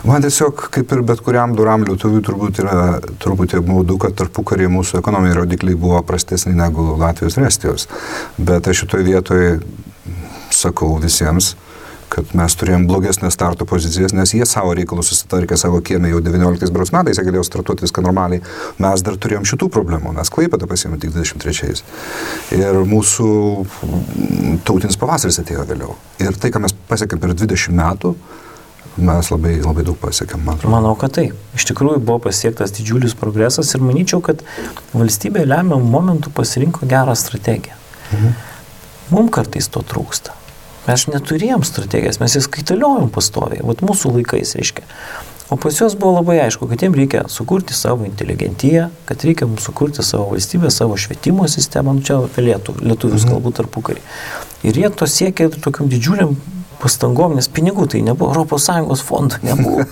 Man tiesiog, kaip ir bet kuriam doram lietuviui, turbūt yra truputį apmaudu, kad tarpukaryje mūsų ekonominiai rodikliai buvo prastesni negu Latvijos ir Estijos. Bet aš šitoje vietoje sakau visiems, kad mes turėjom blogesnės starto pozicijas, nes jie savo reikalus susitarkė savo kiemę jau 19 metais, jie galėjo startuoti viską normaliai. Mes dar turėjom šitų problemų, mes Klaipėdą pasiėmėm tik 23. Ir mūsų tautinis pavasaris atėjo vėliau. Ir tai, ką mes pasiekėm per 20 metų, mes labai, labai daug pasiekėm, man atrodo. Manau, kad taip. Iš tikrųjų buvo pasiektas didžiulis progresas ir manyčiau, kad valstybė lemiamų momentų pasirinko gerą strategiją. Mums kartais to trūksta. Mes neturėjom strategijas, mes jas kaitaliojom pastoviai, mūsų laikais, reiškia. O pas juos buvo labai aišku, kad jiems reikia sukurti savo inteligentiją, kad reikia mums sukurti savo valstybę, savo švietimo sistemą, čia apie lietuvius kalbų tarpukarį. Ir jie to siekė tokiam didžiuliam pastangom, nes pinigų tai nebuvo, ES fondų nebuvo.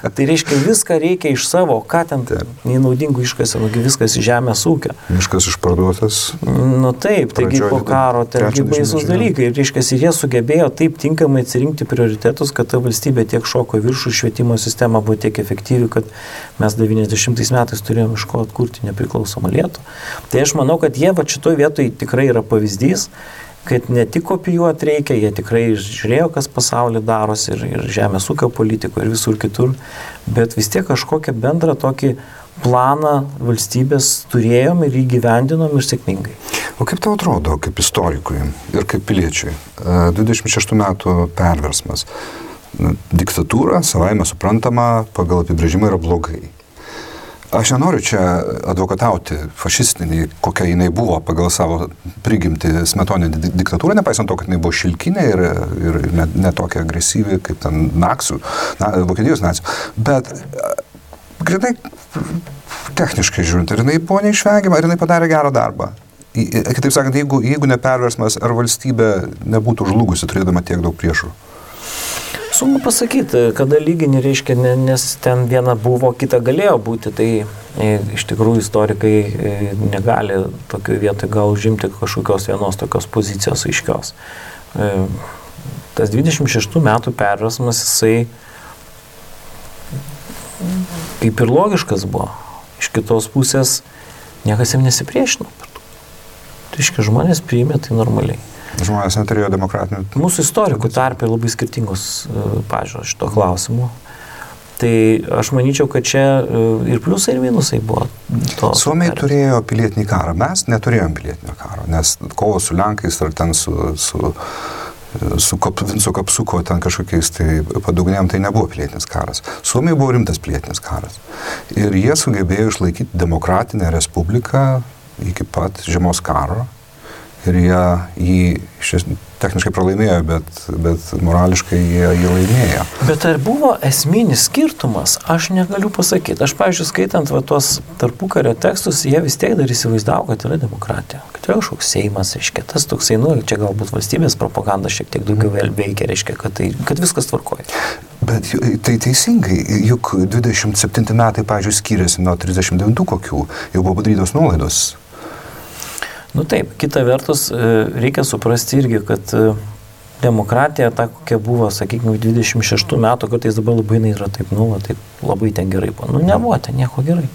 Tai reiškia, viską reikia iš savo, ką ten nenaudingų iškasė, viskas iš žemės ūkio. Miškas išparduotas. Nu taip, taigi po karo tengi baisus dalykai. Ir reiškia, ir jie sugebėjo taip tinkamai atsirinkti prioritetus, kad ta valstybė tiek šoko viršų, švietimo sistema buvo tiek efektyvi, kad mes 90 metais turėjome iš ko atkurti nepriklausomą Lietuvą. Tai aš manau, kad jie va šitoj vietoj tikrai yra pavyzdys, kad ne tik kopijuoti reikia, jie tikrai žiūrėjo, kas pasaulyje darosi ir žemės ūkio politiko ir visur kitur, bet vis tiek kažkokią bendrą tokį planą valstybės turėjom ir įgyvendinom ir sėkmingai. O kaip tau atrodo, kaip istorikui ir kaip piliečiui, 26 metų perversmas, diktatūra, savaime suprantama, pagal apibrėžimą yra blogai. Aš nenoriu čia advokatauti fašistinį, kokia jinai buvo pagal savo prigimtį smetoninę diktatūrą, nepaisant to, kad jinai buvo šilkinė ir ne tokia agresyvi kaip ten Vokietijos nacijų. Bet grinai techniškai žiūrint, ar jinai buvo neišvengiama, ar jinai padarė gerą darbą. Kitaip sakant, jeigu ne perversmas, ar valstybė nebūtų žlugusi, turėdama tiek daug priešų? Sunku pasakyti, kada lygini reiškia, nes ten viena buvo, kita galėjo būti, tai iš tikrųjų istorikai negali tokioje vietoje gal užimti kažkokios vienos tokios pozicijos aiškios. Tas 26 metų perversmas, jisai kaip ir logiškas buvo. Iš kitos pusės niekas jam nesipriešino. Tai reiškia, žmonės priėmė tai normaliai. Žmonės neturėjo demokratinių. Mūsų istorikų tarpe labai skirtingos pažiūros šito klausimu. Tai aš manyčiau, kad čia ir pliusai, ir minusai buvo. Suomiai turėjo pilietinį karą. Mes neturėjom pilietinio karo, nes kovo su Lenkais ar ten su Vinco Kapsuko ten kažkokiais tai padugnėm, tai nebuvo pilietinis karas. Suomiai buvo rimtas pilietinis karas. Ir jie sugebėjo išlaikyti demokratinę respubliką iki pat žiemos karo. Ir jie jį techniškai pralaimėjo, bet morališkai jie laimėjo. Bet ar buvo esminis skirtumas? Aš negaliu pasakyti. Aš, pavyzdžiui, skaitant tuos tarpukario tekstus, jie vis tiek dar įsivaizdavo, kad yra demokratija. Kad yra kažkoks Seimas, reiškia, tas toksai, čia galbūt valstybės propaganda šiek tiek daugiau veikia, reiškia, kad viskas tvarkoja. Bet tai teisingai, juk 27 metai, pavyzdžiui, skiriasi nuo 39 kokių, jau buvo padarytos nuolaidos. Nu taip, kita vertus, reikia suprasti irgi, kad demokratija, ta kokia buvo, sakykime, 26 metų, kartais dabar labai yra taip, taip labai ten gerai buvo. Nebuvo ten nieko gerai.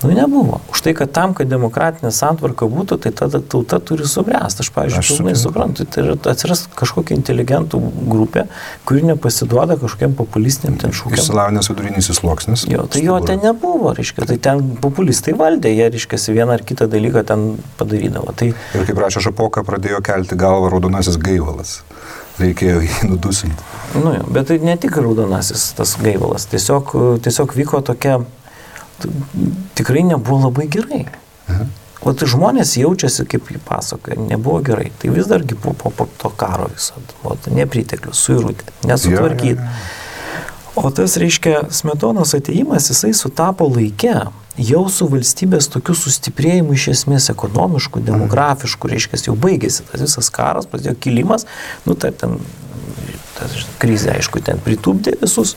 Nebuvo. Už tai, kad tam, kad demokratinė santvarka būtų, tai tada tauta turi subręsti. Aš, pavyzdžiui, pilnai suprantu, tai atsiras kažkokia inteligentų grupė, kuri nepasiduoda kažkokiam populistiniam ten šūkiam. Išsilavinęs vidurinysis sluoksnis. Tai jo ten nebuvo, reiškia, tai ten populistai valdė, jie, reiškia, vieną ar kitą dalyką ten padarydavo. Tai... Ir kaip rašė Šapoka, pradėjo kelti galvą raudonasis gaivalas. Reikėjo jį nudusinti. Bet tai ne tik raudonasis tas gaivalas, tiesiog vyko tokia tikrai nebuvo labai gerai. O tai žmonės jaučiasi, kaip jį pasakoja, nebuvo gerai. Tai vis dargi po to karo visada. Nepriteklius, suirutė, nesutvarkyti. O tas, reiškia, Smetonos atėjimas, jisai sutapo laike jau su valstybės tokiu sustiprėjimu iš esmės ekonomiškų, demografiškų, reiškia, jau baigėsi tas visas karas, prasidėjo kilimas, ten krizė, aišku, ten pritūpdė visus,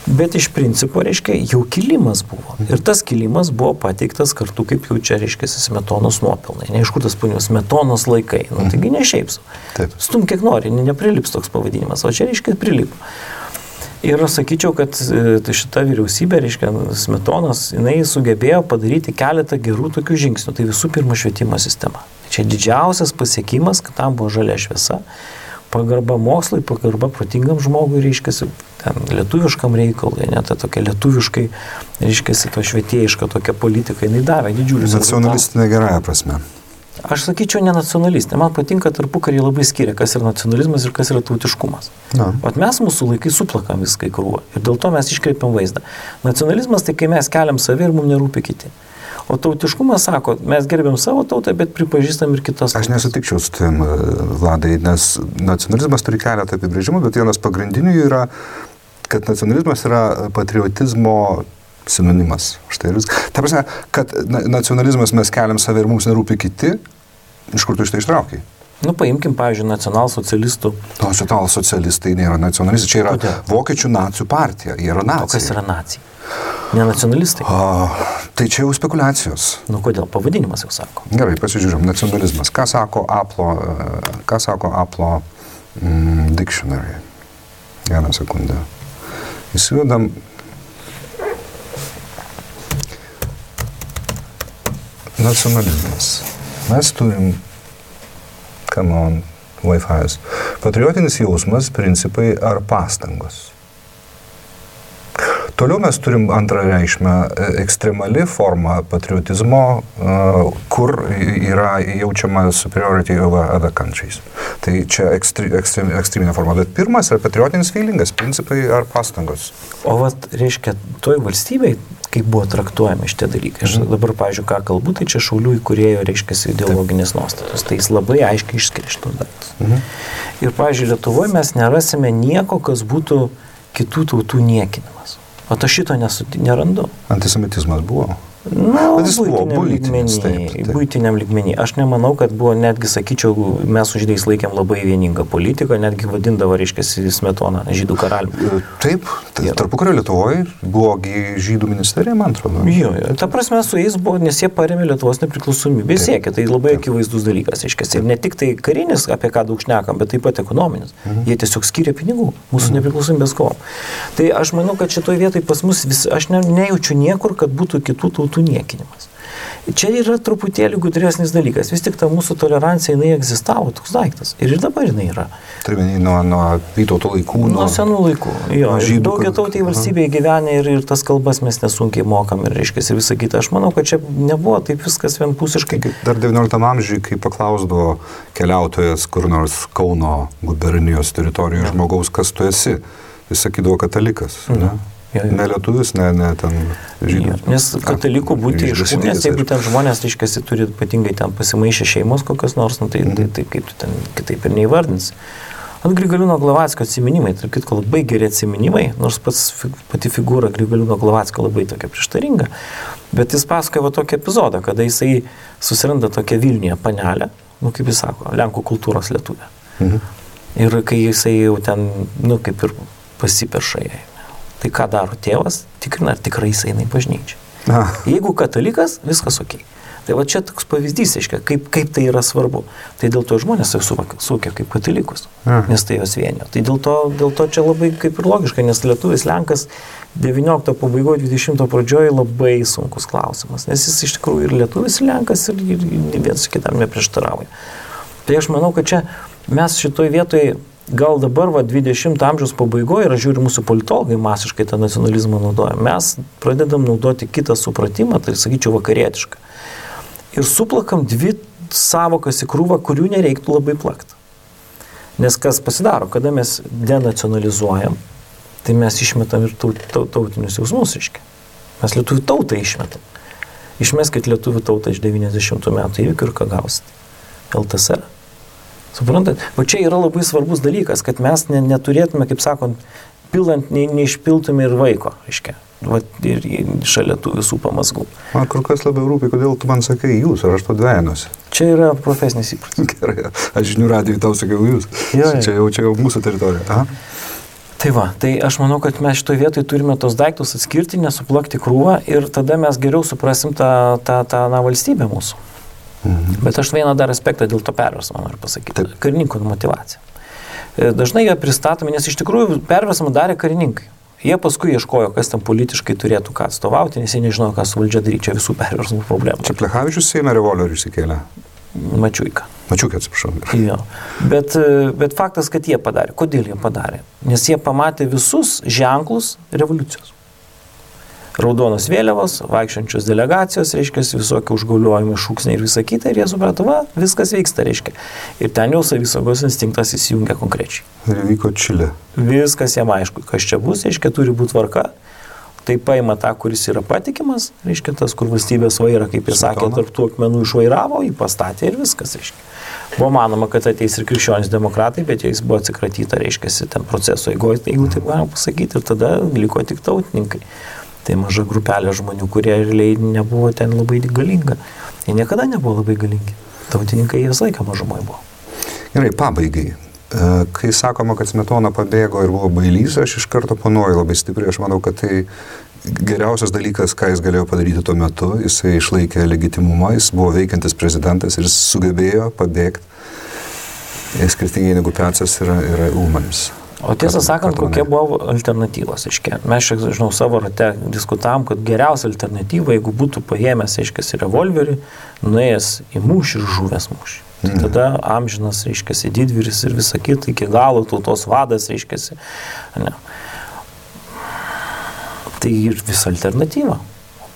bet iš principo, reiškia, jau kilimas buvo. Ir tas kilimas buvo pateiktas kartu, kaip jau čia, reiškia, Smetonos nuopelnai. Ne iš kur tas punios, Smetonos laikai. Taigi ne šiaip su. Stum kiek nori, neprilips toks pavadinimas, o čia, reiškia, prilipo. Ir aš sakyčiau, kad šita vyriausybė, reiškia, Smetonos, jinai sugebėjo padaryti keletą gerų tokių žingsnių. Tai visų pirma švietimo sistema. Čia didžiausias pasiekimas, kad tam buvo žalia šviesa. Pagarba mokslui, pagarba protingam žmogui, reiškiasi, ten lietuviškam reikalui, net tokia lietuviškai, reiškiasi, to švietėjiška tokia politika, jinai davė didžiulius. Nacionalistinė gerąja prasme. Aš sakyčiau, ne nacionalistinė. Man patinka tarpukarį labai skiria, kas yra nacionalizmas ir kas yra tautiškumas. O mes mūsų laikai suplakam viską į krūvą ir dėl to mes iškreipiam vaizdą. Nacionalizmas tai kai mes keliam save ir mums nerūpi kiti. O tautiškumas sako, mes gerbėm savo tautą, bet pripažįstam ir kitas tautas. Aš nesutikčiau su tavim, Vladai, nes nacionalizmas turi keletą apibrėžimų, bet vienas pagrindinių yra, kad nacionalizmas yra patriotizmo sinonimas. Štai ir viskas. Ta prasme, kad nacionalizmas mes keliam save ir mums nerūpi kiti, iš kur tu iš tai ištraukiai? Nu, paimkim, pavyzdžiui, nacionalsocialistų. Nacionalsocialistai nėra nacionalistai, čia yra vokiečių nacijų partija, jie yra nacijai. O kas yra nacijai? Ne nacionalistai? Tai čia jau spekulacijos. Nu, kodėl? Pavadinimas jau sako. Gerai, pasižiūrėm, nacionalizmas. Ką sako Aplo dictionary? Vieną sekundę. Įsivedam. Nacionalizmas. Mes turim come on, Wi-Fi's. Patriotinis jausmas, principai ar pastangos. Toliau mes turim antrą reikšmę ekstremali forma patriotizmo, kur yra jaučiama superiority over other countries. Tai čia ekstreminė forma. Bet pirmas yra patriotinis feelingas, principai ar pastangos. O vat, reiškia, toj valstybei, kaip buvo traktuojami šitie dalykai. Aš dabar, pavyzdžiui, ką kalbu, tai čia Šaulių įkūrėjo, reiškia, ideologinės nuostatos. Tai jis labai aiškiai išskiria šitos dalykus. Ir, pavyzdžiui, Lietuvoje mes nerasime nieko, kas būtų kitų tautų niekinimas. O to šito nerandu. Antisemitizmas buvo. Nu, būtiniam lygmenį. Aš nemanau, kad buvo, netgi sakyčiau, mes su žydais laikėm labai vieningą politiką, netgi vadindavo, reiškia, Smetoną žydų karaliumi. Taip, tarpukario Lietuvoje buvo žydų ministerija, man atrodo. Jo, ta prasme su jais buvo, nes jie parėmė Lietuvos nepriklausomybę, siekė, tai labai akivaizdus dalykas, reiškia. Ir ne tik tai karinis, apie ką daug šnekam, bet taip pat ekonominis. Jie tiesiog skiria pinigų mūsų nepriklausomybės kovom. Tai aš manau, kad šitoje vietoje pas mus aš nejaučiu niekur, kad būtų kitų tautų niekinimas. Čia yra truputėlį gudresnis dalykas. Vis tik ta mūsų tolerancija, jinai egzistavo, toks daiktas. Ir dabar jinai yra. Turime nuo Vytauto laikų. Nuo senų laikų. Jo, daugiatautėje valstybėje gyvenę ir tas kalbas mes nesunkiai mokam ir reiškia ir visą kitą. Aš manau, kad čia nebuvo taip viskas vienpusiškai. Dar 19 amžiuje, kai paklausdavo keliautojas kur nors Kauno gubernijos teritorijoje žmogaus, kas tu esi, jis sakydavo katalikas. Ne? Ne lietuvis, ne ten žydų. Nes katalikų būti iš šūnės, jeigu ten žmonės, reiškiasi, turi ypatingai ten pasimaišę šeimos kokios nors, tai kaip tu ten kitaip ir neįvardins. Ant Grigaliūno Glavackio atsiminimai, tarp kitko labai geri atsiminimai, nors pati figūra Grigaliūno Glavackio labai tokia prieštaringa, bet jis pasakoja tokį epizodą, kada jisai susiranda tokią Vilniuje panelę, kaip jis sako, Lenkų kultūros lietuvė. Ir kai jisai jau ten, kaip ir pasiperša jai. Tai ką daro tėvas, tikrina, ar tikrai jis eina į bažnyčią. Jeigu katalikas, viskas ok. Tai va čia toks pavyzdys, aiškia, kaip tai yra svarbu. Tai dėl to žmonės suvokia kaip katalikus, nes tai jos vienio. Tai dėl to čia labai kaip ir logiška, nes lietuvis Lenkas 19 pabaigoje, 20 pradžioje labai sunkus klausimas, nes jis iš tikrųjų ir lietuvis ir Lenkas ir vienas kitam neprieštarauja. Tai aš manau, kad čia mes šitoj vietoje gal dabar 20 amžiaus pabaigoje, ir aš žiūriu, mūsų politologai masiškai tą nacionalizmą naudoja, mes pradedam naudoti kitą supratimą, tai sakyčiau vakarietišką. Ir suplakam dvi savokas į krūvą, kurių nereiktų labai plakti. Nes kas pasidaro, kada mes denacionalizuojam, tai mes išmetam ir tautinius jausmus, reiškia. Mes lietuvių tautą išmetam. Išmeskit lietuvių tautą iš 90 metų įvykių ir ką gausit? LTSR. Suprantat? O čia yra labai svarbus dalykas, kad mes neturėtume, kaip sakant, pilant, neišpiltume ir vaiko, reiškia. Ir šalia tų visų pamazgų. Man kur kas labiau rūpi, kodėl tu man sakai jūs, ar aš to dvejinosi. Čia yra profesinis įprotis. Gerai, aš žinių radijui tau sakiau jūs. Čia jau mūsų teritorija. Aha. Tai va, tai aš manau, kad mes šitoje vietoje turime tos daiktus atskirti, nesuplakti krūvą ir tada mes geriau suprasim tą valstybę mūsų. Bet aš vieną dar aspektą dėl to perversmo noriu pasakyti. Karininkų motyvacija. Dažnai jie pristatomi, nes iš tikrųjų perversmą darė karininkai. Jie paskui ieškojo, kas tam politiškai turėtų ką atstovauti, nes jie nežinojo, ką su valdžia daryti. Čia visų perversmų problemų. Čia Plechavičius Seime revolverių išsikėlė? Mačiuika. Mačiuika, atsiprašau. Jo. Bet faktas, kad jie padarė. Kodėl jie padarė? Nes jie pamatė visus ženklus revoliucijos. Raudonos vėliavos, vaikščiančios delegacijos, reiškia, visokie užgauliojimai, šūksniai ir visa kita, ir jie suprato, viskas vyksta, reiškia. Ir ten jau savisaugos instinktas įsijungia konkrečiai. Ir vyko Čilė. Viskas jam aišku, kas čia bus, reiškia, turi būti tvarka. Tai paima tą, kuris yra patikimas, reiškia, tas, kur valstybės vaira, kaip jis sakė, tarp tų akmenų išvairavo, jį pastatė ir viskas, reiškia. Buvo manoma, kad ateis ir krikščionys demokratai, bet jais buvo atsikratyta, reiškia, ten proceso eigoje, jeigu taip galima pasakyti, ir tada liko tik tautininkai. Tai maža grupelė žmonių, kurie realiai nebuvo ten labai galinga. Jie niekada nebuvo labai galingi. Tautininkai jie visą laiką mažumai buvo. Gerai, pabaigai. Kai sakoma, kad Smetona pabėgo ir buvo bailys, aš iš karto panoju labai stipriai. Aš manau, kad tai geriausias dalykas, ką jis galėjo padaryti tuo metu. Jisai išlaikė legitimumą, jis buvo veikiantis prezidentas ir jis sugebėjo pabėgti. Skirtingai negu Pecas yra Ulmanis. O tiesą sakant, kokie buvo alternatyvos, aiškiai. Mes, žinau, savo rate diskutavom, kad geriausia alternatyva, jeigu būtų paėmęs, aiškiai, revolverį, nuėjęs į mūšį ir žuvęs mūšį. Tai tada amžinas, reiškiasi, didvyris ir visa kita, iki galo tautos vadas, reiškiasi. Ne. Tai ir visa alternatyva.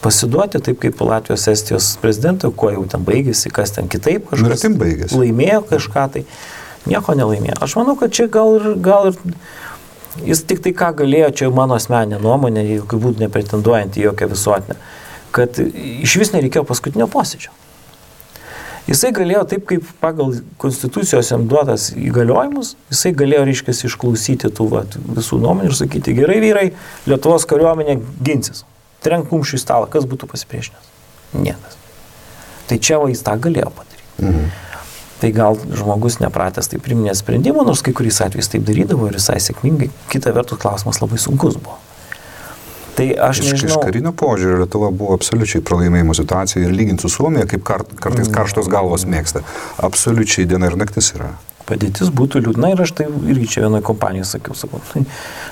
Pasiduoti taip kaip Latvijos Estijos prezidentai, kuo jau ten baigėsi, kas ten kitaip, kažkas laimėjo kažką, tai nieko nelaimėjo. Aš manau, kad čia gal ir jis tik tai ką galėjo, čia mano asmeninė nuomonė, jokių būdų nepretenduojant į jokią visuotinę, kad iš vis nereikėjo paskutinio posėdžio. Jisai galėjo taip, kaip pagal konstitucijos jam duotas įgaliojimus, jisai galėjo, reiškia, išklausyti tų visų nuomonių ir sakyti, gerai vyrai, Lietuvos kariuomenė ginsis. Trenk kumščių į stalą, kas būtų pasipriešinęs? Niekas. Tai čia jis tą galėjo padaryti. Tai gal žmogus nepratęs taip priminė sprendimų, nors kai kuriais atvejais taip darydavo ir visai sėkmingai. Kita vertus klausimas labai sunkus buvo. Tai aš nežinau. Iš karinio požiūrio Lietuva buvo absoliučiai pralaimėjimo situacija ir lyginti su Suomija, kaip kartais karštos galvos mėgsta. Absoliučiai diena ir naktis yra. Padėtis būtų liūdna ir aš tai irgi čia vienoje kompanijoje sakau.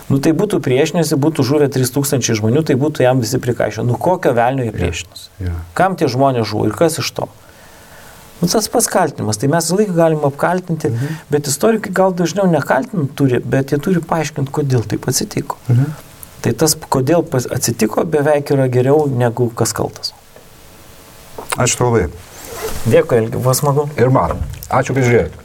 Tai būtų priešinėsi, būtų žuvę 3000 žmonių, tai būtų jam visi prikaišę. Kokio velnio jie priešinosi? Kam tie žmonės žuvo ir kas iš to? Tas pats kaltinimas, tai mes laiką galim apkaltinti, bet istorikai gal dažniau nekaltinti turi, bet jie turi paaiškinti, kodėl taip atsitiko. Tai tas, kodėl atsitiko, beveik yra geriau negu kas kaltas. Ačiū labai. Dėkui, Elgi, buvo smagu. Ir man. Ačiū, kad žiūrėjote.